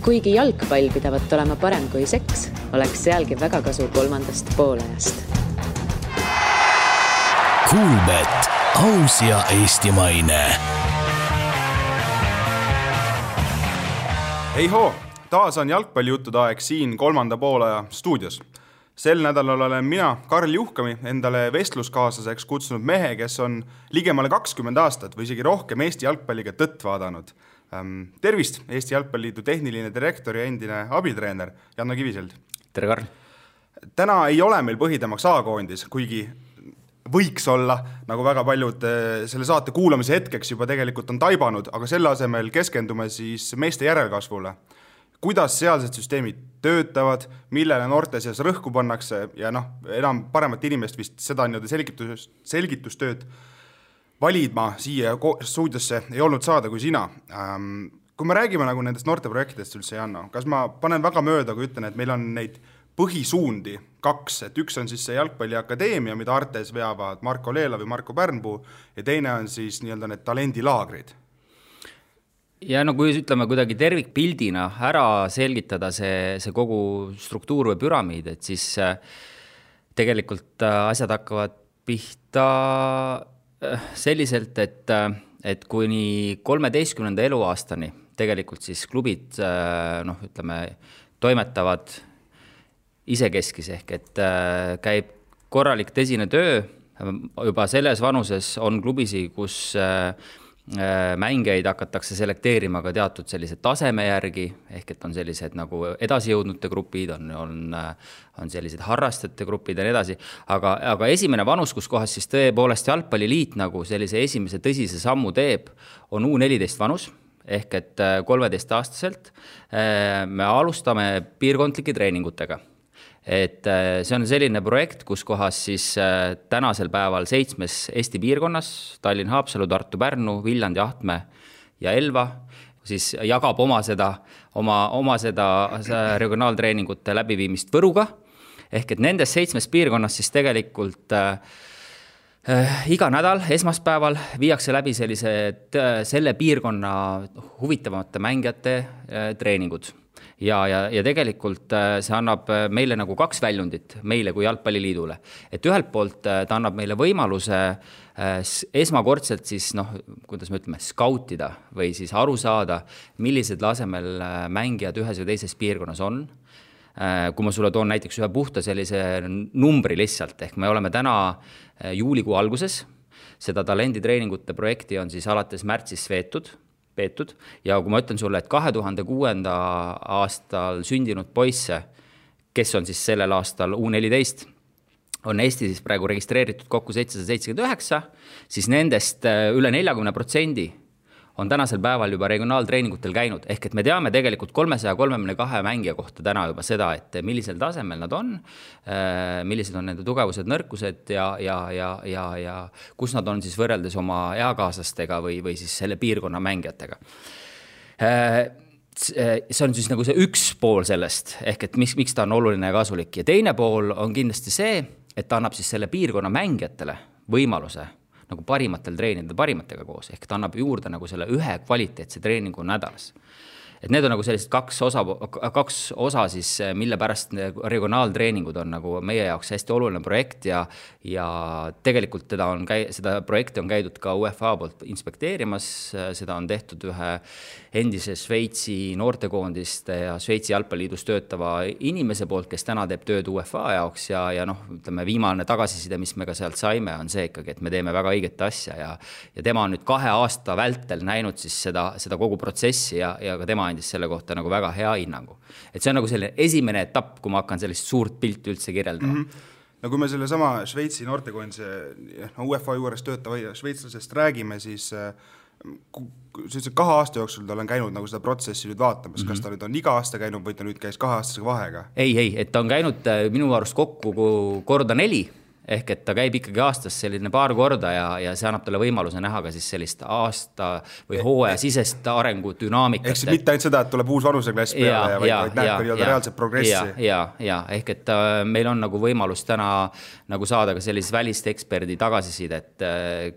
Kuigi jalgpall pidavat olema parem kui seks, oleks sealgi väga kasu kolmandast poolajast. Kuulbet, aus ja eestimaine. Hei hoo, taas on jalgpallijuttude aeg siin kolmanda poolaja stuudios. Sel nädalal olen mina, Karl Juhkami, endale vestluskaaslaseks kutsunud mehe, kes on ligemale 20 aastat või isegi rohkem Eesti jalgpalliga tõtt vaadanud. Tervist, Eesti Jalgpalliliidu tehniline direktor ja endine abitreener Janno Kiviselt. Tere, Karl. Täna ei ole meil põhitemaks A-koondis, kuigi võiks olla, nagu väga paljud selle saate kuulamise hetkeks juba tegelikult on taibanud, aga selle asemel keskendume siis meeste järelkasvule. Kuidas sealsed süsteemid töötavad, millele noorte seas rõhku pannakse ja enam paremat inimest vist seda selgitustööd validma siia stuudiosse ei olnud saada kui sina. Kui me räägime nagu nendest noorte projektidest üldse, Janno, kas ma panen väga mööda, kui ütlen, et meil on neid põhisuundi 2, et üks on siis see jalgpalliakadeemia, mida Artes veavad Marko Leela või Marko Pärnpuu ja teine on siis nii-öelda need talendilaagrid. Ja kui ütleme kuidagi tervikpildina ära selgitada see kogu struktuur või püramiid, et siis tegelikult asjad hakkavad pihta selliselt, et kuni 13. eluaastani tegelikult siis klubid toimetavad isekeskis ehk, et käib korralik tõsine töö. Juba selles vanuses on klubisi, kus mängijaid hakatakse selekteerima ka teatud sellised taseme järgi, ehk et on sellised nagu edasijõudnute grupid, on sellised harrastajate grupid ja nii edasi. Aga esimene vanus, kus kohas siis tõepoolest jalgpalliliit nagu sellise esimese tõsise sammu teeb, on U14 vanus, ehk et 13-aastaselt me alustame piirkondlike treeningutega. Et see on selline projekt, kus kohas siis tänasel päeval 7 Eesti piirkonnas, Tallinn, Haapsalu, Tartu, Pärnu, Viljandi, Ahtme ja Elva, siis jagab oma seda regionaaltreeningute läbiviimist Võruga. Ehk et nendes 7 piirkonnas siis tegelikult iga nädal esmaspäeval viiakse läbi selle piirkonna huvitavamate mängijate treeningud. Ja tegelikult see annab meile nagu 2 väljundit, meile kui jalgpalliliidule. Et ühelt poolt ta annab meile võimaluse esmakordselt siis, kuidas me ütleme, skautida või siis aru saada, millised lasemel mängijad ühes või teises piirkonnas on. Kui ma sulle toon näiteks ühe puhta sellise numbri lihtsalt, ehk me oleme täna juulikuu alguses, seda talenditreeningute projekti on siis alates märtsis peetud ja kui ma ütlen sulle, et 2006. aastal sündinud poisse, kes on siis sellel aastal U14, on Eesti siis praegu registreeritud kokku 779, siis nendest üle 40% on tänasel päeval juba regionaaltreeningutel käinud, ehk et me teame tegelikult 332 mängija kohta täna juba seda, et millisel tasemel nad on, millised on nende tugevused, nõrkused ja kus nad on siis võrreldes oma eakaaslastega või siis selle piirkonna mängijatega. See on siis nagu see üks pool sellest, ehk et miks ta on oluline ja kasulik. Ja teine pool on kindlasti see, et ta annab siis selle piirkonna mängijatele võimaluse nagu parimatel treenida parimatega koos, ehk ta annab juurde nagu selle ühe kvaliteetse treeningu nädalas. Et need on nagu sellised kaks osa siis, mille pärast regionaaltreeningud on nagu meie jaoks hästi oluline projekt ja tegelikult seda projekti on käidud ka UEFA poolt inspekteerimas, seda on tehtud ühe endise Šveitsi noortekoondiste ja Šveitsi jalgpalliliidus töötava inimese poolt, kes täna teeb tööd UEFA jaoks ja ütleme, viimane tagasiside, mis me ka sealt saime, on see ikkagi, et me teeme väga õiget asja ja tema on nüüd 2 aasta vältel näinud siis seda kogu protsessi ja ka tema andis selle kohta nagu väga hea hinnangu. Et see on nagu selline esimene etapp, kui ma hakkan sellist suurt pilti üldse kirjeldama. No kui me selle sama Šveitsi noortekoondise UEFA juures töötava šveitslasest räägime, siis 2 aasta jooksul ta on käinud nagu seda protsessi nüüd vaatamas, kas ta nüüd on iga aasta käinud või ta nüüd käis 2 aastase vahega? Ei, et ta on käinud minu arust kokku korda 4, ehk et ta käib ikkagi aastas selline paar korda ja see annab talle võimaluse näha ka siis sellist aasta või hooaja sisest arengudünaamikat. Ehk siis mitte ainult seda, et tuleb uus vanuseklass peale, vaid näeb ka reaalset progressi. Ja, ehk et meil on nagu võimalus täna nagu saada ka sellist välist eksperdi tagasisidet,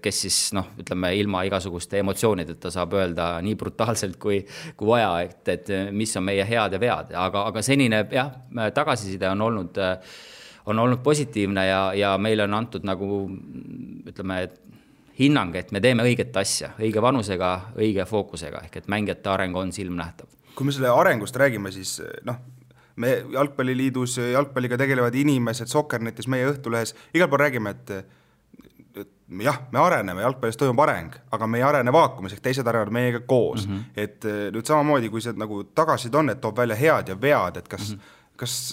kes siis ütleme ilma igasuguste emotsioonideta saab öelda nii brutaalselt kui vaja, et mis on meie head ja vead, aga senine tagasiside on olnud positiivne ja meile on antud nagu ütleme hinnang, et me teeme õiget asja, õige vanusega, õige fookusega, ehk et mängijate areng on silmnähtav. Kui me selle arengust räägime, siis me Jalgpalliliidus jalgpalliga tegelevad inimesed, Soccernetis, meie Õhtulehes, igal pool räägime, et jah, me areneme, jalgpallis toimub areng, aga me ei arene vaakumis, ehk teised arenevad meiega koos. Et nüüd samamoodi, kui see nagu tagasid on, et toob välja head ja vead, et kas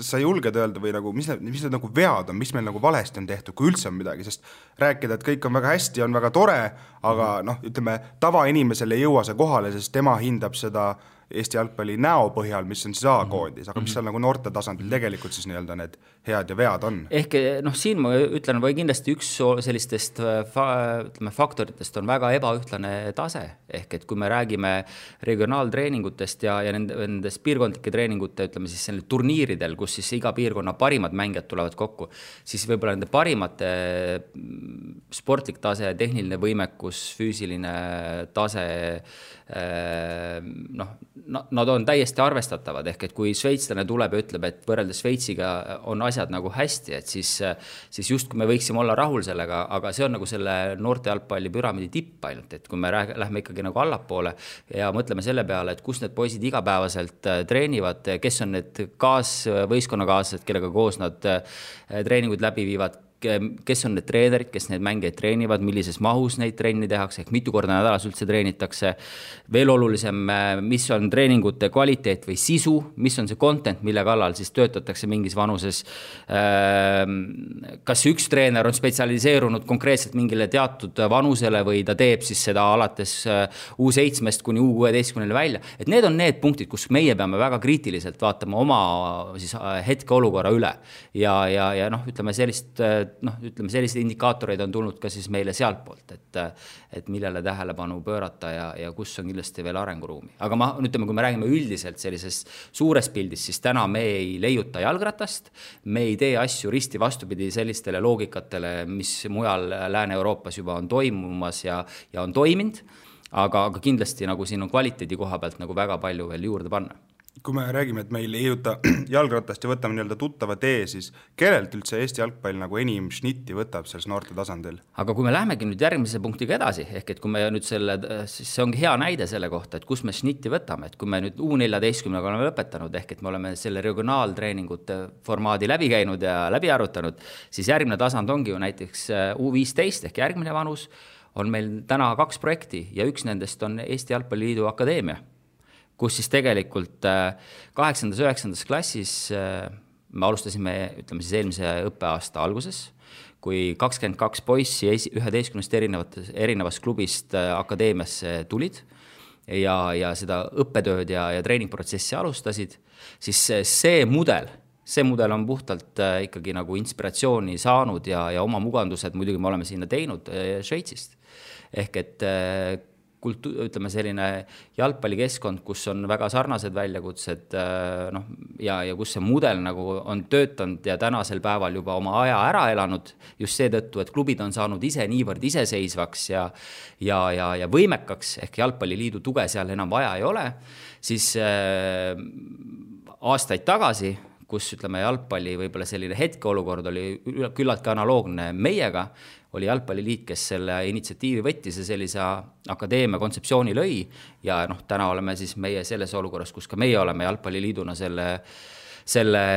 sa julged öelda või nagu, mis need nagu vead on, mis meil nagu valesti on tehtud, kui üldse on midagi, sest rääkida, et kõik on väga hästi, on väga tore, aga ütleme, tavainimesele ei jõua see kohale, sest tema hindab seda Eesti jalgpalli näo põhjal, mis on siis A-koondis, aga mis seal nagu noorte tasandil tegelikult siis nii-öelda need head ja vead on? Ehk siin ma ütlen, või kindlasti üks sellistest faktoritest on väga ebaühtlane tase, ehk et kui me räägime regionaaltreeningutest ja nendest piirkondlike treeningute, ütleme siis selle turniiridel, kus siis iga piirkonna parimad mängijad tulevad kokku, siis võib-olla nende parimate sportlik tase, tehniline võimekus, füüsiline tase, nad on täiesti arvestatavad, ehk et kui šveitslane tuleb ja ütleb, et võrreldes Šveitsiga on asjad nagu hästi, et siis just kui me võiksime olla rahul sellega, aga see on nagu selle noorte jalgpalli püramiidi tipp ainult, et kui me lähme ikkagi nagu allapoole ja mõtleme selle peale, et kus need poisid igapäevaselt treenivad, kes on need võistkonnakaaslased, kellega koos nad treeningud läbi viivad, kes on need treenerid, kes neid mängeid treenivad, millises mahus neid trenni tehakse, ehk mitu korda nädalas üldse treenitakse. Veel olulisem, mis on treeningute kvaliteet või sisu, mis on see content, mille kallal siis töötatakse mingis vanuses. Kas üks treener on spetsialiseerunud konkreetselt mingile teatud vanusele või ta teeb siis seda alates U7-st kuni U16 välja. Et need on need punktid, kus meie peame väga kriitiliselt vaatama oma siis hetke olukorra üle ja ütleme sellised indikaatoreid on tulnud ka siis meile sealt poolt, et millele tähelepanu pöörata ja kus on kindlasti veel arenguruumi. Aga kui me räägime üldiselt sellisest suures pildis, siis täna me ei leiuta jalgratast, me ei tee asju risti vastupidi sellistele loogikatele, mis mujal Lääne-Euroopas juba on toimumas ja on toiminud, aga kindlasti nagu siin on kvaliteedi koha pealt nagu väga palju veel juurde panna. Kui me räägime, et meil ei jõuta jalgratast ja võtame nii-öelda tuttava tee, siis kellelt üldse Eesti jalgpall nagu enim šnitti võtab selles noorte tasandil? Aga kui me lähemegi nüüd järgmise punktiga edasi, ehk et kui me nüüd siis see ongi hea näide selle kohta, et kus me šnitti võtame, et kui me nüüd U14 oleme lõpetanud, ehk et me oleme selle regionaaltreeningute formaadi läbi käinud ja läbi arutanud, siis järgmine tasand ongi ju näiteks U15 ehk järgmine vanus on meil täna 2 projekti ja üks nendest on Eesti Jalgpalliliidu Akadeemia, kus siis tegelikult 8. ja 9. klassis me alustasime, ütleme siis eelmise õppeaasta alguses, kui 22 poissi 11 erinevast klubist akadeemiasse tulid ja seda õppetööd ja treeningprotsessi alustasid, siis see mudel on puhtalt ikkagi nagu inspiratsiooni saanud ja oma mugandused muidugi me oleme sinna teinud Šveitsist. Ehk et ütleme selline jalgpallikeskkond, kus on väga sarnased väljakutsed ja kus see mudel nagu on töötanud ja tänasel päeval juba oma aja ära elanud just seetõttu, et klubid on saanud ise niivõrd iseseisvaks ja võimekaks, ehk Jalgpalliliidu tuge seal enam vaja ei ole, siis aastaid tagasi, kus ütleme jalgpalli võib-olla selline hetkeolukord oli küllaltki analoogne meiega, oli Jalgpalliliit, kes selle initsiatiivi võttis ja sellise akadeemia kontseptsiooni lõi ja täna oleme siis meie selles olukorras, kus ka meie oleme Jalgpalliliiduna selle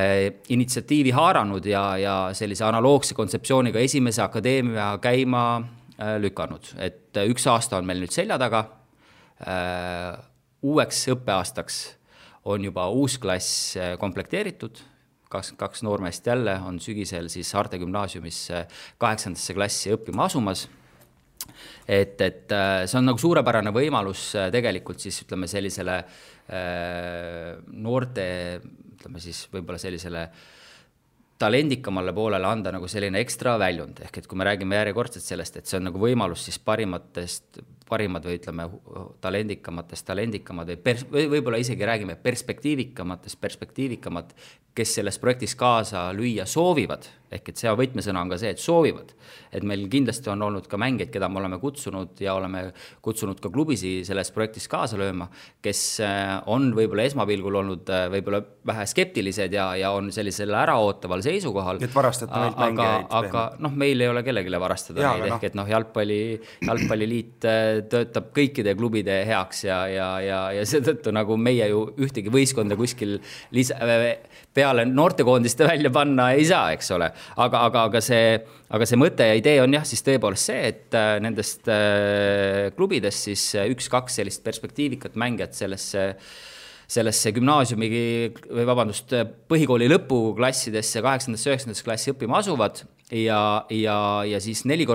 initsiatiivi haaranud ja sellise analoogse kontseptsiooniga esimese akadeemia käima lükanud. Et 1 aasta on meil nüüd selja taga, uueks õppeaastaks on juba uus klass komplekteeritud, 22 noormeest jälle on sügisel siis Saarte gümnaasiumisse 8. klassi õppima asumas. Et see on nagu suurepärane võimalus tegelikult siis ütleme sellisele noorte, ütleme siis võib-olla sellisele talendikamale poolele anda nagu selline ekstra väljund, ehk et kui me räägime järjekordselt sellest, et see on nagu võimalus siis parimad või ütleme talendikamad või võib-olla isegi räägime perspektiivikamad, kes selles projektis kaasa lüüa soovivad, ehk et see võtmesõna on ka see, et soovivad. Et meil kindlasti on olnud ka mängeid, keda me oleme kutsunud ja oleme kutsunud ka klubisi selles projektis kaasa lööma, kes on võib-olla esmapilgul olnud võib-olla vähe skeptilised ja on sellisel äraootaval seisukohal. Et varastate meilt mängeid. Aga meil ei ole kellegile varastada neid, ehk et jalgpalliliit töötab kõikide klubide heaks ja seetõttu nagu meie ju ühtegi võistkonda kuskil peale noortekoondiste välja panna ei saa, eks ole. Aga see mõte ja idee on jah, siis tõepoolest see, et nendest klubidest siis 1-2 sellist perspektiivikat mängijat sellesse gümnaasiumi või põhikooli lõpuklassidesse 8.–9. klassi õppima asuvad ja siis 4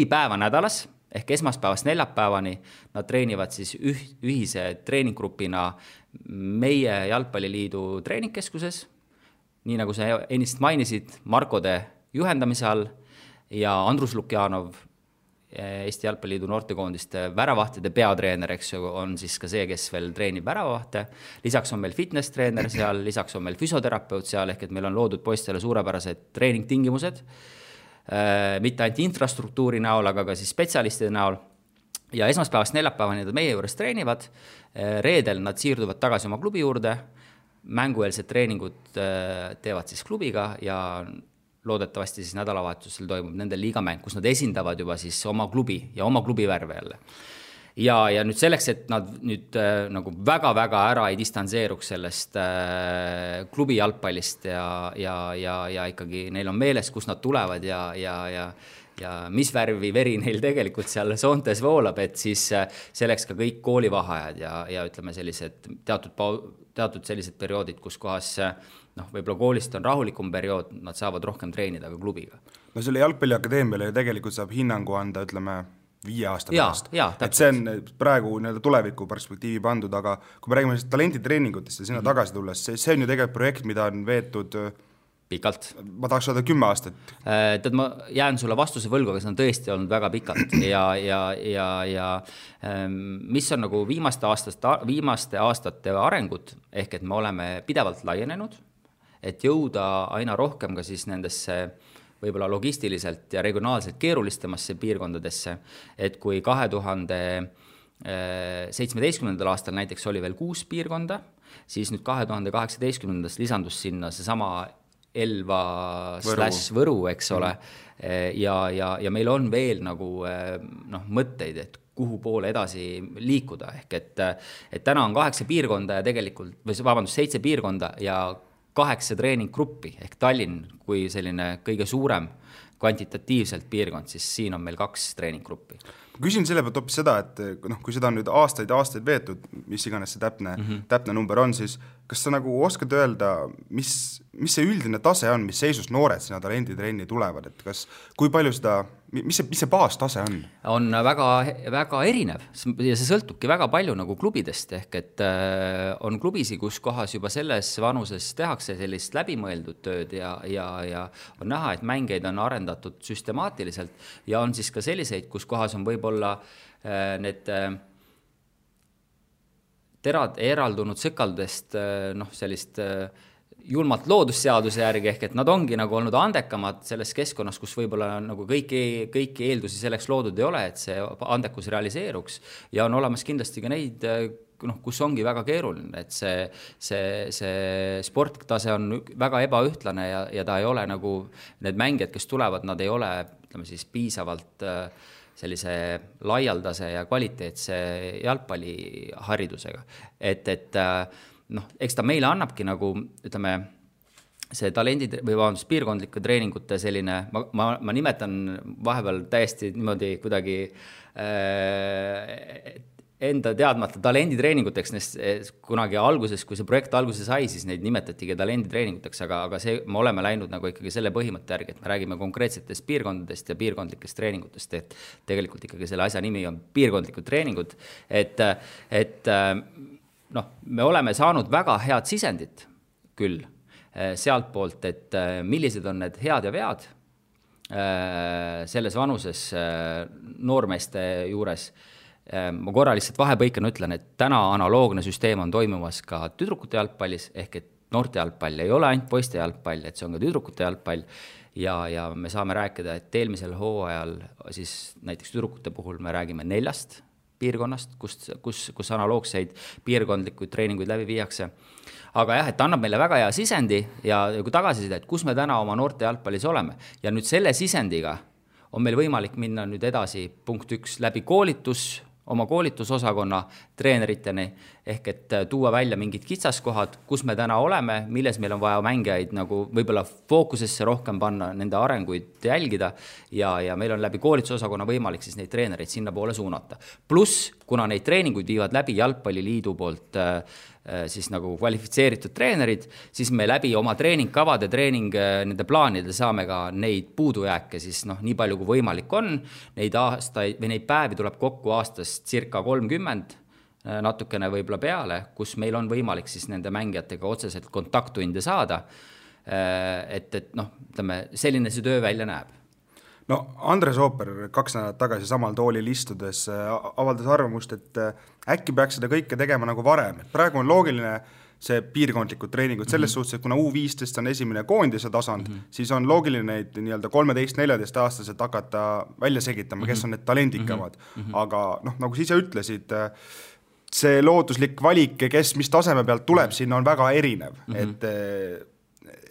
päeva nädalas ehk esmaspäevast neljapäevani nad treenivad siis ühise treeninggrupina meie Jalgpalliliidu treeningkeskuses, nii nagu sa ennist mainisid, Markode juhendamise all ja Andrus Lukjanov, Eesti Jalgpalliliidu noortekoondiste väravahtide peatreener, eks ju, on siis ka see, kes veel treenib väravahte. Lisaks on meil fitness-treener seal, lisaks on meil füsioterapeut seal, ehk et meil on loodud poistele suurepärased treeningtingimused, mitte ainult infrastruktuuri näol, aga ka siis spetsialistide näol. Ja esmaspäevast neljapäevani nad meie juures treenivad, reedel nad siirduvad tagasi oma klubi juurde, mängueelsed treeningud teevad siis klubiga ja loodetavasti siis nädalavahetusel toimub nendel liigamäng, kus nad esindavad juba siis oma klubi ja oma klubi värve jälle. Ja nüüd selleks, et nad nüüd nagu väga-väga ära ei distantseeruks sellest klubi jalgpallist ja ikkagi neil on meeles, kus nad tulevad ja mis värvi veri neil tegelikult seal soontes voolab, et siis selleks ka kõik koolivaheajad ja ütleme sellised teatud sellised perioodid, kus kohas võib-olla koolist on rahulikum periood, nad saavad rohkem treenida ka klubiga. No selle jalgpalliakadeemiale tegelikult saab hinnangu anda, ütleme, 5 aasta pärast. Et see on praegu tuleviku perspektiivi pandud, aga kui me räägime talenditreeningutest ja sinna tagasi tulles, see on ju tegelikult projekt, mida on veetud pikalt. Ma tahaks öelda 10 aastat. Tead, ma jään sulle vastuse võlgu, aga see on tõesti olnud väga pikalt ja mis on nagu viimaste aastate arengud, ehk et me oleme pidevalt laienenud, et jõuda aina rohkem ka siis nendesse võib-olla logistiliselt ja regionaalselt keerulistemasse piirkondadesse, et kui 2017. Aastal näiteks oli veel 6 piirkonda, siis nüüd 2018. Lisandus sinna see sama Elva/Võru, eks ole, ja meil on veel nagu mõtteid, et kuhu poole edasi liikuda, ehk et täna on 8 piirkonda ja tegelikult, 7 piirkonda ja 8 treeninggruppi, ehk Tallinn kui selline kõige suurem kvantitatiivselt piirkond, siis siin on meil 2 treeninggruppi. Ma küsin selle pealt hoopis seda, et kui seda on nüüd aastaid veetud, mis iganes see täpne number on, siis kas sa nagu oskad öelda, mis see üldine tase on, mis seisus noored sinna talenditrenni tulevad, et kui palju seda, mis see baastase on? On väga, väga erinev ja see sõltubki väga palju nagu klubidest, ehk et on klubisi, kus kohas juba selles vanuses tehakse sellist läbimõeldud tööd ja on näha, et mängeid on arendatud süstemaatiliselt ja on siis ka selliseid, kus kohas on võib-olla need terad eraldunud sõkaldest sellist julmalt loodusseaduse järgi, ehk et nad ongi nagu olnud andekamad selles keskkonnas, kus võib-olla nagu kõiki eeldusi selleks loodud ei ole, et see andekus realiseeruks ja on olemas kindlasti ka neid, kus ongi väga keeruline, et see sporttase on väga ebaühtlane ja ta ei ole nagu need mängijad, kes tulevad, nad ei ole, ütleme siis, piisavalt sellise laialdase ja kvaliteetse jalgpalliharidusega. Et eks ta meile annabki nagu, ütleme, see piirkondlike treeningute selline, ma nimetan vahepeal täiesti niimoodi kuidagi enda teadmata talenditreeninguteks, kunagi alguses, kui see projekt alguses sai, siis neid nimetatigi talenditreeninguteks, aga me oleme läinud nagu ikkagi selle põhimõtte järgi, et me räägime konkreetsetest piirkondadest ja piirkondlikest treeningutest, et tegelikult ikkagi selle asja nimi on piirkondlikud treeningud, et me oleme saanud väga head sisendit küll sealt poolt, et millised on need head ja vead selles vanuses noormeeste juures. Ma korra lihtsalt vahepõikena ütlen, et täna analoogne süsteem on toimumas ka tüdrukute jalgpallis, ehk et noorte jalgpall ei ole ainult poiste jalgpall, et see on ka tüdrukute jalgpall ja me saame rääkida, et eelmisel hooajal siis näiteks tüdrukute puhul me räägime 4 piirkonnast, kus analoogseid piirkondlikuid treeninguid läbi viiakse. Aga jah, et annab meile väga hea sisendi ja kui tagasiside, et kus me täna oma noorte jalgpallis oleme. Ja nüüd selle sisendiga on meil võimalik minna nüüd edasi punkt 1 läbi oma koolitusosakonna treeneriteni, ehk et tuua välja mingid kitsaskohad, kus me täna oleme, milles meil on vaja mängijaid nagu võib-olla fookusesse rohkem panna, nende arenguid jälgida ja meil on läbi koolitusosakonna võimalik siis neid treenereid sinna poole suunata. Pluss, kuna neid treeninguid viivad läbi Jalgpalliliidu poolt siis nagu kvalifitseeritud treenerid, siis me läbi oma treeningkavade, nende plaanide saame ka neid puudujääke siis nii palju kui võimalik on. Neid aastaid või neid päevi tuleb kokku aastast circa 30, natukene võib-olla peale, kus meil on võimalik siis nende mängijatega otseselt kontakttunde saada. Et selline see töö välja näeb. No Andres Ooper 2 nädalat tagasi samal toolil istudes avaldas arvamust, et äkki peaks seda kõike tegema nagu varem. Praegu on loogiline see piirkondlikud treeningud selles suhtes, et kuna U15 on esimene koondise tasand, siis on loogiline neid nii-öelda 13-14 aastaselt hakata välja segitama, kes on need talendikamad. Aga nagu sa ise ütlesid, see looduslik valik, kes mis taseme pealt tuleb, sinna on väga erinev.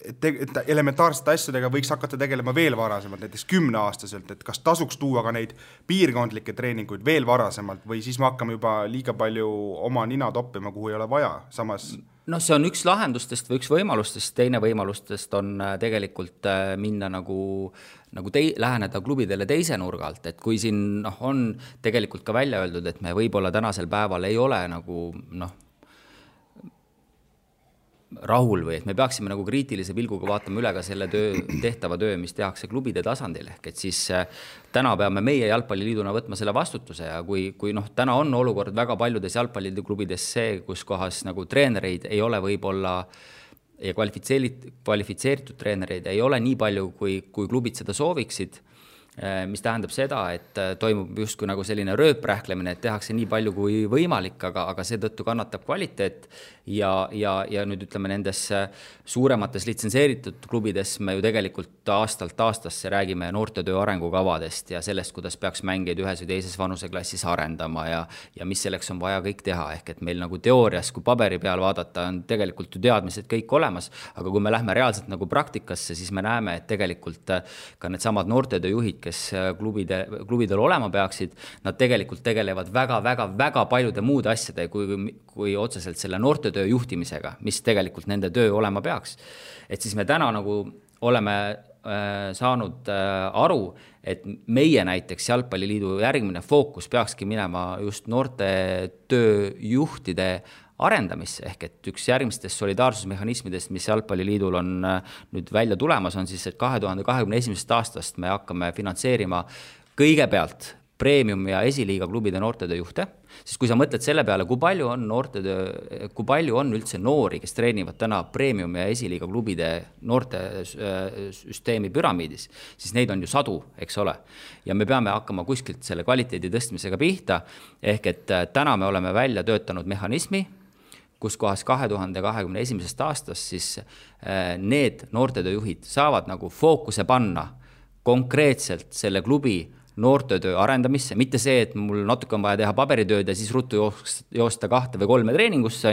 Et elementaarsete asjadega võiks hakata tegelema veel varasemalt, näiteks 10-aastaselt, et kas tasuks tuua ka neid piirkondlikke treeninguid veel varasemalt või siis me hakkame juba liiga palju oma nina toppima, kuhu ei ole vaja. Samas... see on üks lahendustest või üks võimalustest, teine võimalustest on tegelikult minna läheneda klubidele teise nurga alt, et kui siin on tegelikult ka välja öeldud, et me võib-olla tänasel päeval ei ole rahul või et me peaksime kriitilise pilguga vaatama üle ka selle tehtava töö, mis tehakse klubide tasandil, ehk et siis täna peame meie Jalgpalliliiduna võtma selle vastutuse ja kui täna on olukord väga paljudes jalgpalliklubides see, kus kohas treenereid ei ole võib-olla ja kvalifitseeritud treenereid ei ole nii palju, kui klubid seda sooviksid, mis tähendab seda, et toimub justkui selline rööprähklemine, et tehakse nii palju kui võimalik, aga seetõttu kannatab kvaliteet ja nüüd ütleme nendes suuremates litsenseeritud klubides me ju tegelikult aastalt aastasse räägime noortetöö arengukavadest ja sellest, kuidas peaks mängijaid ühes või teises vanuseklassis arendama ja mis selleks on vaja kõik teha, ehk et meil teoorias, kui paberi peal vaadata, on tegelikult ju teadmised kõik olemas, aga kui me lähme reaalselt praktikasse, siis me näeme, et tegelikult ka need samad noortetööjuhid, kes klubidel olema peaksid, nad tegelikult tegelevad väga paljude muude asjade kui otseselt selle noortetöö juhtimisega, mis tegelikult nende töö olema peaks. Et siis me täna oleme saanud aru, et meie näiteks Jalgpalliliidu järgmine fookus peakski minema just noortetööjuhtide arendamisse, ehk et üks järgmistest solidaarsusmehhanismidest, mis Jalgpalliliidul on nüüd välja tulemas, on siis, et 2021. aastast me hakkame finantseerima kõigepealt premium- ja esiliiga klubide noortetööjuhte, sest kui sa mõtled selle peale, kui palju on üldse noori, kes treenivad täna premium- ja esiliiga klubide noortesüsteemi püramiidis, siis neid on ju sadu, eks ole. Ja me peame hakkama kuskilt selle kvaliteedi tõstmisega pihta, ehk et täna me oleme välja töötanud mehhanismi, kus kohas 2021. aastast siis need noortetööjuhid saavad fookuse panna konkreetselt selle klubi noortetöö arendamisse, mitte see, et mul natuke on vaja teha paberitööd ja siis ruttu joosta 2 või 3 treeningusse,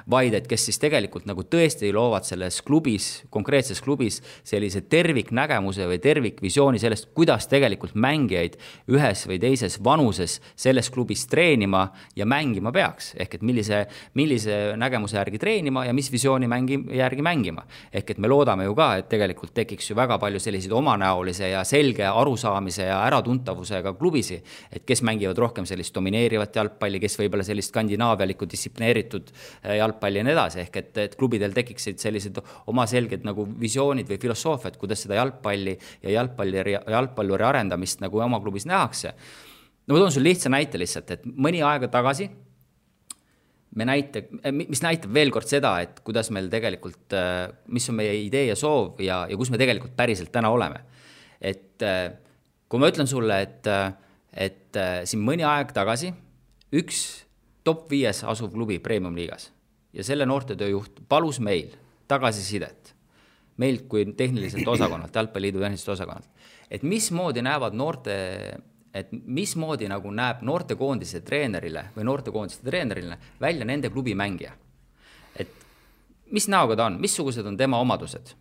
vaid et kes siis tegelikult tõesti loovad selles klubis, konkreetses klubis sellise terviknägemuse või tervikvisiooni sellest, kuidas tegelikult mängijaid ühes või teises vanuses selles klubis treenima ja mängima peaks, ehk et millise nägemuse järgi treenima ja mis visiooni järgi mängima. Ehk et me loodame ju ka, et tegelikult tekiks ju väga palju selliseid omanäolise ja selge arusaamise ja äratuntavusega klubisi, et kes mängivad rohkem sellist domineerivat jalgpalli, kes võib-olla sellist skandinaavialikku distsiplineeritud jalgpalli ja nii edasi, ehk et klubidel tekiksid sellised oma selged visioonid või filosoofiad, kuidas seda jalgpalli ja jalgpalluri arendamist oma klubis nähakse. Ma toon sul lihtsa näite lihtsalt, et mõni aega tagasi mis näitab veel kord seda, et kuidas meil tegelikult, mis on meie idee ja soov ja kus me tegelikult päriselt täna oleme. Et kui ma ütlen sulle, et siin mõni aeg tagasi üks top 5 asuv klubi Premium liigas ja selle noortetööjuht palus meil tagasisidet, meilt kui tehniliselt osakonnalt, Jalgpalliliidu tehniliselt osakonnalt, et mismoodi nagu näeb noortekoondise treenerile või noortekoondiste treenerile välja nende klubi mängija. Et mis näoga ta on, missugused on tema omadused.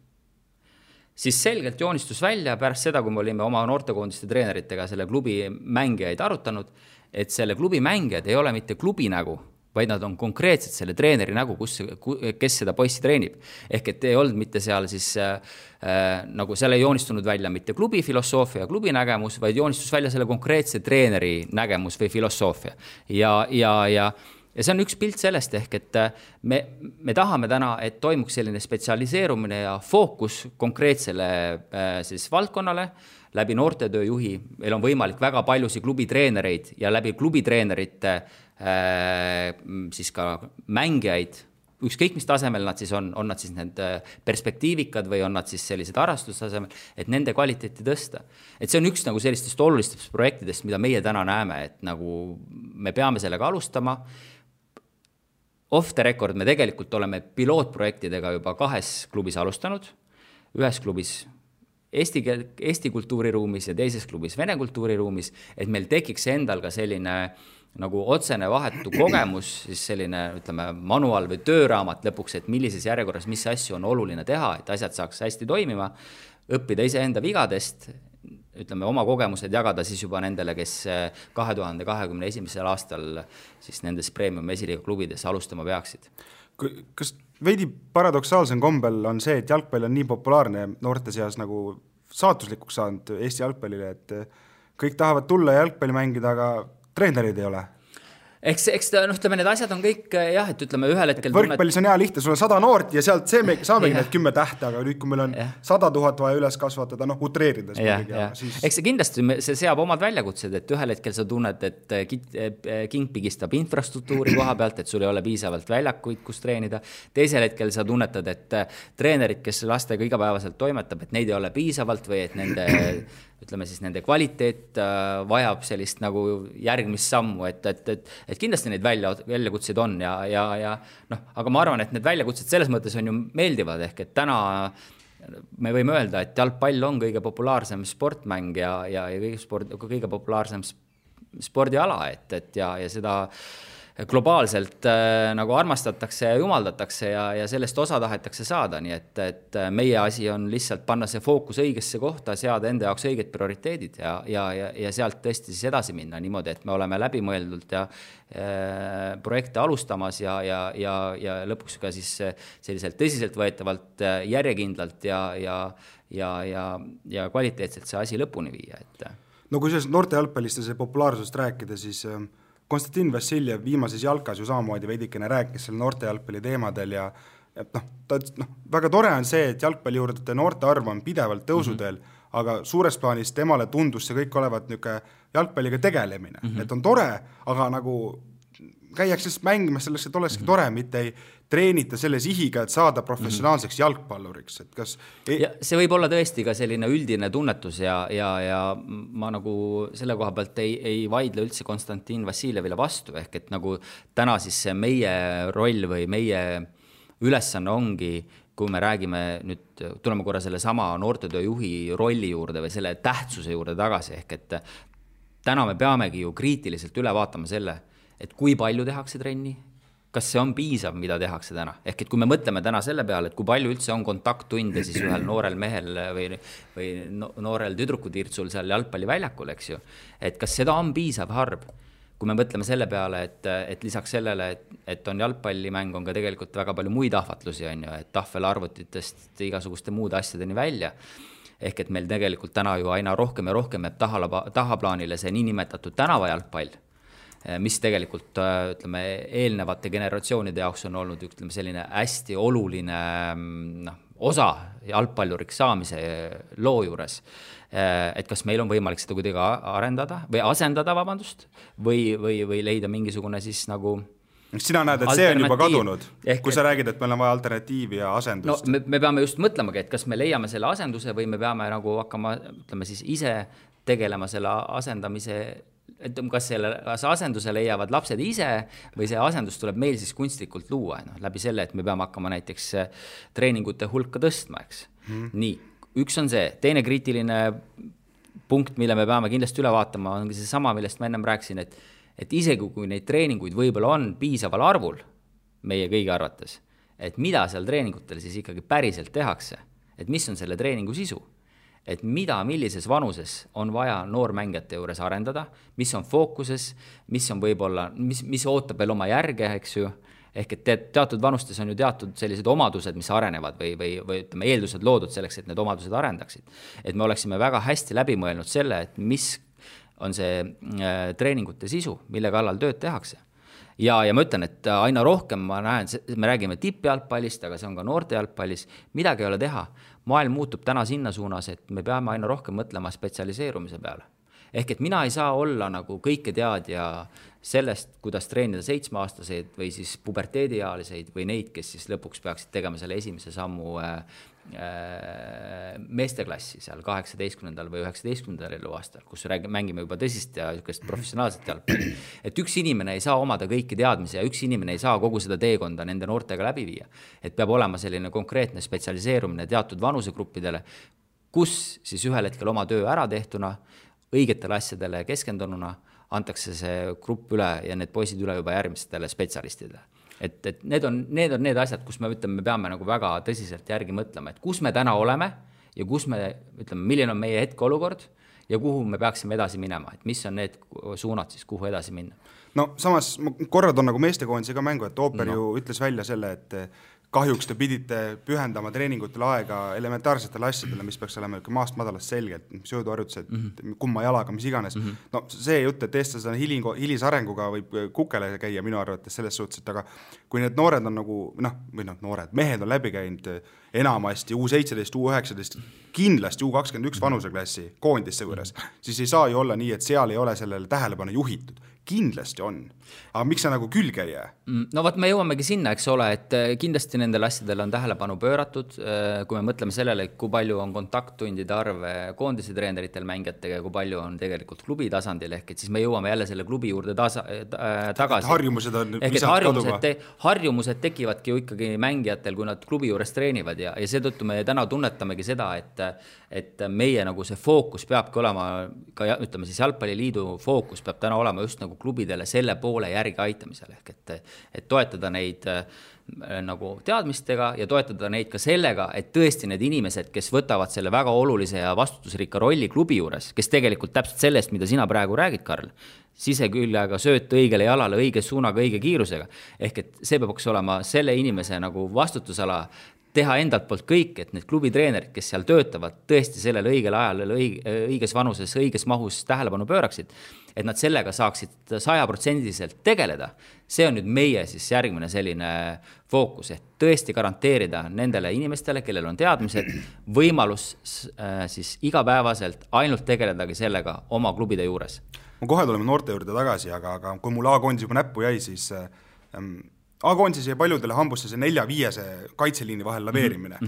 Siis selgelt joonistus välja pärast seda, kui me olime oma noortekoondiste treeneritega selle klubi mängijaid arutanud, et selle klubi mängijad ei ole mitte klubi nägu, vaid nad on konkreetselt selle treeneri nägu, kes seda poissi treenib. Ehk et ei olnud mitte seal siis, nagu seal ei joonistunud välja mitte klubi filosoofia ja klubi nägemus, vaid joonistus välja selle konkreetse treeneri nägemus või filosoofia. Ja see on üks pilt sellest ehk, et me tahame täna, et toimuks selline spetsialiseerumine ja fookus konkreetsele siis valdkonnale, läbi noortetööjuhi. Meil on võimalik väga paljusid klubitreenereid ja läbi klubitreenerite siis ka mängijaid, ükskõik mis tasemel nad siis on nad siis need perspektiivikad või on nad siis sellised harrastustasemel, et nende kvaliteeti tõsta. Et see on üks nagu sellistest olulistest projektidest, mida meie täna näeme, et nagu me peame sellega alustama. Off the record me tegelikult oleme pilootprojektidega juba 2 klubis alustanud, ühes klubis Eesti kultuuriruumis ja teises klubis Vene kultuuriruumis, et meil tekiks endal ka selline nagu otsene vahetu kogemus, siis selline, ütleme, manual või tööraamat lõpuks, et millises järjekorras, mis asju on oluline teha, et asjad saaks hästi toimima, õppida iseenda vigadest, ütleme, oma kogemused jagada siis juba nendele, kes 2021. aastal siis nendes Premium esiliiga klubides alustama peaksid. Kas veidi paradoksaalsem kombel on see, et jalgpall on nii populaarne noorte seas nagu saatuslikuks saanud Eesti jalgpallile, et kõik tahavad tulla jalgpalli mängida, aga treenerid ei ole? Eks ütleme, need asjad on kõik, jah, et ütleme ühel hetkel... Võrkpallis on hea lihtne, sul on 100 noort ja sealt saamegi need 10 tähte, aga nüüd, kui meil on 100 000 vaja üles kasvatada, utreerides. Siis... Eks see kindlasti see seab omad väljakutsed, et ühel hetkel sa tunned, et king pigistab infrastruktuuri koha pealt, et sul ei ole piisavalt väljakuid, kus treenida. Teisel hetkel sa tunnetad, et treenerid, kes lastega igapäevaselt toimetab, et neid ei ole piisavalt või et nende kvaliteet vajab sellist nagu järgmist sammu, et kindlasti neid väljakutseid on ja aga ma arvan, et need väljakutsed selles mõttes on ju meeldivad, ehk et täna me võime öelda, et jalgpall on kõige populaarsem sportmäng ja kõige populaarsem spordiala, ja seda globaalselt nagu armastatakse ja jumaldatakse ja sellest osa tahetakse saada, nii et meie asi on lihtsalt panna see fookus õigesse kohta, seada enda jaoks õiged prioriteedid ja sealt tõesti siis edasi minna niimoodi, et me oleme läbimõeldult ja projekte alustamas ja lõpuks ka siis selliselt tõsiselt võetavalt järjekindlalt ja kvaliteetselt see asi lõpuni viia. No kui sellest noorte jalgpalliste see populaarsusest rääkida, siis Konstantin Vassiljev viimases jalkas ju samamoodi veidikene rääkis selle noorte jalgpalli teemadel ja väga tore on see, et jalgpalli juurde noorte arv on pidevalt tõusudel, aga suures plaanis temale tundus see kõik olevat jalgpalliga tegelemine. Et on tore, aga nagu käiakse mängimas selleks, et olekski tore, mitte ei treenita selle sihiga, et saada professionaalseks jalgpalluriks. Et kas see võib olla tõesti ka selline üldine tunnetus ja ma nagu selle koha pealt ei vaidle üldse Konstantin Vassiljevile vastu, ehk et nagu täna siis see meie roll või meie ülesanne ongi, kui me räägime nüüd, tuleme korra selle sama noortetööjuhi rolli juurde või selle tähtsuse juurde tagasi, ehk et täna me peamegi ju kriitiliselt üle vaatama selle, et kui palju tehakse trenni, kas see on piisav, mida tehakse täna. Ehk et kui me mõtleme täna selle peale, et kui palju üldse on kontakttunde siis ühel noorel mehel või noorel tüdrukutirtsul seal jalgpalliväljakul, eks ju, et kas seda on piisav harv, kui me mõtleme selle peale, et lisaks sellele, et on jalgpallimäng, on ka tegelikult väga palju muid ahvatlusi, on ju, et tahvelarvutitest igasuguste muude asjadeni välja. Ehk et meil tegelikult täna ju aina rohkem ja rohkem jääb tahaplaanile see niinimetatud tänavajalgpall, mis tegelikult, ütleme, eelnevate generatsioonide jaoks on olnud, ütleme, selline hästi oluline osa jalgpalluriks saamise loo juures. Et kas meil on võimalik seda kuidagi arendada või asendada, või leida mingisugune siis nagu Sina näed, et see on juba kadunud, kui sa räägid, et meil on vaja alternatiivi ja asendust. No, me peame just mõtlemagi, et kas me leiame selle asenduse või me peame nagu hakkama, ütleme siis ise tegelema selle asendamise, et kas selle asenduse leiavad lapsed ise või see asendus tuleb meil siis kunstlikult luua, läbi selle, et me peame hakkama näiteks treeningute hulka tõstma, eks. Nii, üks on see, teine kriitiline punkt, mille me peame kindlasti üle vaatama, ongi see sama, millest ma ennem rääkisin, et isegi kui neid treeninguid võib-olla on piisaval arvul meie kõigi arvates, et mida seal treeningutel siis ikkagi päriselt tehakse, et mis on selle treeningu sisu, et millises vanuses on vaja noormängijate juures arendada, mis on fookuses, mis on võib-olla, mis ootab veel oma järge, eks ju, ehk et teatud vanustes on ju teatud sellised omadused, mis arenevad või ütleme, eeldused loodud selleks, et need omadused arendaksid. Et me oleksime väga hästi läbi mõelnud selle, et mis on see treeningute sisu, mille kallal tööd tehakse. Ja ma ütlen, et aina rohkem ma näen, me räägime tippjalgpallist, aga see on ka noorte jalgpallis, midagi ei ole teha. Maailm muutub täna sinna suunas, et me peame aina rohkem mõtlema spetsialiseerumise peale. Ehk et mina ei saa olla nagu kõike teadja sellest, kuidas treenida 7-aastaseid või siis puberteediealiseid või neid, kes siis lõpuks peaksid tegema selle esimese sammu meesteklassi seal 18. või 19. eluaastal, kus mängime juba tõsist ja professionaalset jalgpalli. Et üks inimene ei saa omada kõiki teadmisi ja üks inimene ei saa kogu seda teekonda nende noortega läbi viia. Et peab olema selline konkreetne spetsialiseerumine teatud vanusegruppidele, kus siis ühel hetkel oma töö ära tehtuna, õigetele asjadele keskendununa antakse see grupp üle ja need poisid üle juba järgmistele spetsialistidele. Et need on need asjad, kus me peame nagu väga tõsiselt järgi mõtlema, et kus me täna oleme ja kus me, ütleme, milline on meie hetkeolukord ja kuhu me peaksime edasi minema, et mis on need suunad siis, kuhu edasi minna. No samas korrad on nagu meestekoondise ka mängu, et Ooper ju ütles välja selle, et kahjuks te pidite pühendama treeningutele aega elementaarsetele asjadele, mis peaks olema maast madalast selgelt, sööduharjutused, kumma jalaga, mis iganes. No see jutt, et eestlased on hilisarenguga võib kukele käia minu arvates selles suhtes, et aga kui need noored on nagu, noored, mehed on läbi käinud enamasti U17, U19, kindlasti U21 vanuseklassi koondisse juures, siis ei saa ju olla nii, et seal ei ole sellele tähelepanu juhitud. Kindlasti on. Aga miks sa nagu külge ei jää? No me jõuamegi sinna, eks ole, et kindlasti nendel asjadel on tähelepanu pööratud, kui me mõtleme sellele, kui palju on kontakttundide arv koondise treeneritel mängijatega ja kui palju on tegelikult klubi tasandil, ehk et siis me jõuame jälle selle klubi juurde tagasi. Harjumused on visalt kaduva. Harjumused tekivadki ju ikkagi mängijatel, kui nad klubi juures treenivad ja seetõttu me täna tunnetamegi seda, et meie nagu see fookus peabki olema, ka ütleme siis Jalgpalliliidu fookus peab täna olema just nagu klubidele selle poole järgi aitamisel, ehk et toetada neid nagu teadmistega ja toetada neid ka sellega, et tõesti need inimesed, kes võtavad selle väga olulise ja vastutusrikka rolli klubi juures, kes tegelikult täpselt sellest, mida sina praegu räägid, Karl, siseküljaga sööt õigele jalale, õige suunaga, õige kiirusega, ehk et see peaks olema selle inimese nagu vastutusala teha endalt poolt kõik, et need klubitreenerid, kes seal töötavad, tõesti sellel õigel ajal, õiges vanuses, õiges mahus tähelepanu pööraksid, et nad sellega saaksid 100% tegeleda. See on nüüd meie siis järgmine selline fookus, et tõesti garanteerida nendele inimestele, kellel on teadmised, võimalus siis igapäevaselt ainult tegeledagi sellega oma klubide juures. Ma kohe tuleme noorte juurde tagasi, aga kui mul A-koondis juba näppu jäi, siis A-koondis jäi paljudele hambusse see 4-5 kaitseliini vahel laveerimine.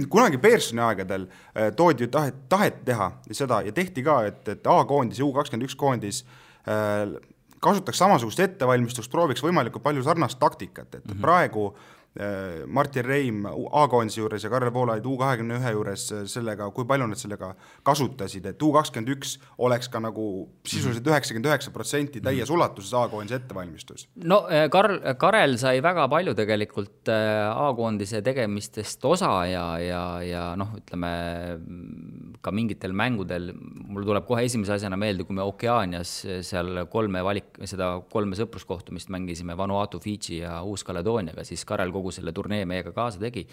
Kunagi Pearsoni aegadel toodi ju tahet teha seda ja tehti ka, et A-koondis ja U21 koondis kasutaks samasugust ettevalmistust, prooviks võimalikult palju sarnast taktikat, et praegu Martin Reim A-koondise juures ja Karel Voolaid U21 juures sellega, kui palju nad sellega kasutasid, et U21 oleks ka nagu sisuliselt 99% täies ulatuses A-koondise ettevalmistus. No Karel sai väga palju tegelikult A-koondise tegemistest osa ja ütleme ka mingitel mängudel, mul tuleb kohe esimese asjana meelde, kui me Okeanias seal 3 sõpruskohtumist mängisime Vanuatu, Fidži ja Uus-Kaledooniaga, siis Karel kogu selle turnee meiega kaasa tegi.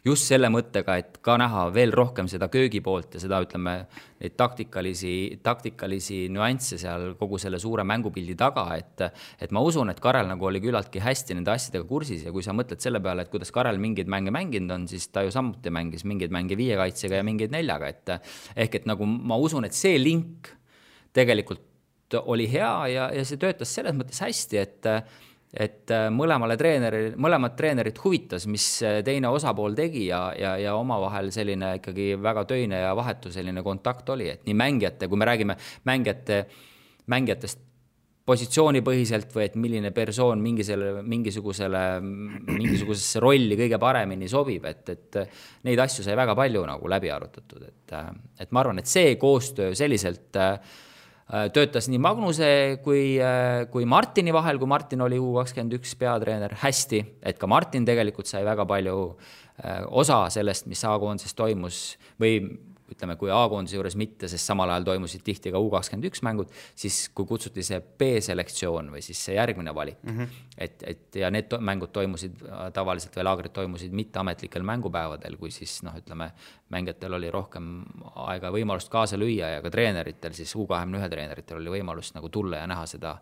Just selle mõttega, et ka näha veel rohkem seda köögi poolt ja seda, ütleme, neid taktikalisi nüansse seal kogu selle suure mängupildi taga, et ma usun, et Karel nagu oli küllaltki hästi nende asjadega kursis ja kui sa mõtled selle peale, et kuidas Karel mingeid mänge mänginud on, siis ta ju samuti mängis mingeid mänge 5 kaitsega ja mingeid 4-ga, ehk et nagu ma usun, et see link tegelikult oli hea ja see töötas selles mõttes hästi, et mõlemad treenerid huvitas, mis teine osapool tegi ja omavahel selline ikkagi väga töine ja vahetu selline kontakt oli, et nii mängijate, kui me räägime mängijatest positsioonipõhiselt või et milline persoon mingisugusesse rolli kõige paremini sobib, et neid asju sai väga palju nagu läbi arutatud, et ma arvan, et see koostöö selliselt töötas nii Magnuse kui Martini vahel, kui Martin oli U21 peatreener hästi, et ka Martin tegelikult sai väga palju osa sellest, mis A-koondises toimus või ütleme, kui A-koondise juures mitte, sest samal ajal toimusid tihti ka U21 mängud, siis kui kutsuti see B-selektsioon või siis see järgmine valik, et ja need mängud toimusid tavaliselt või laagrid toimusid mitteametlikel mängupäevadel, kui siis ütleme, mängijatel oli rohkem aega võimalust kaasa lüüa ja ka treeneritel, siis U21 treeneritel oli võimalust nagu tulla ja näha seda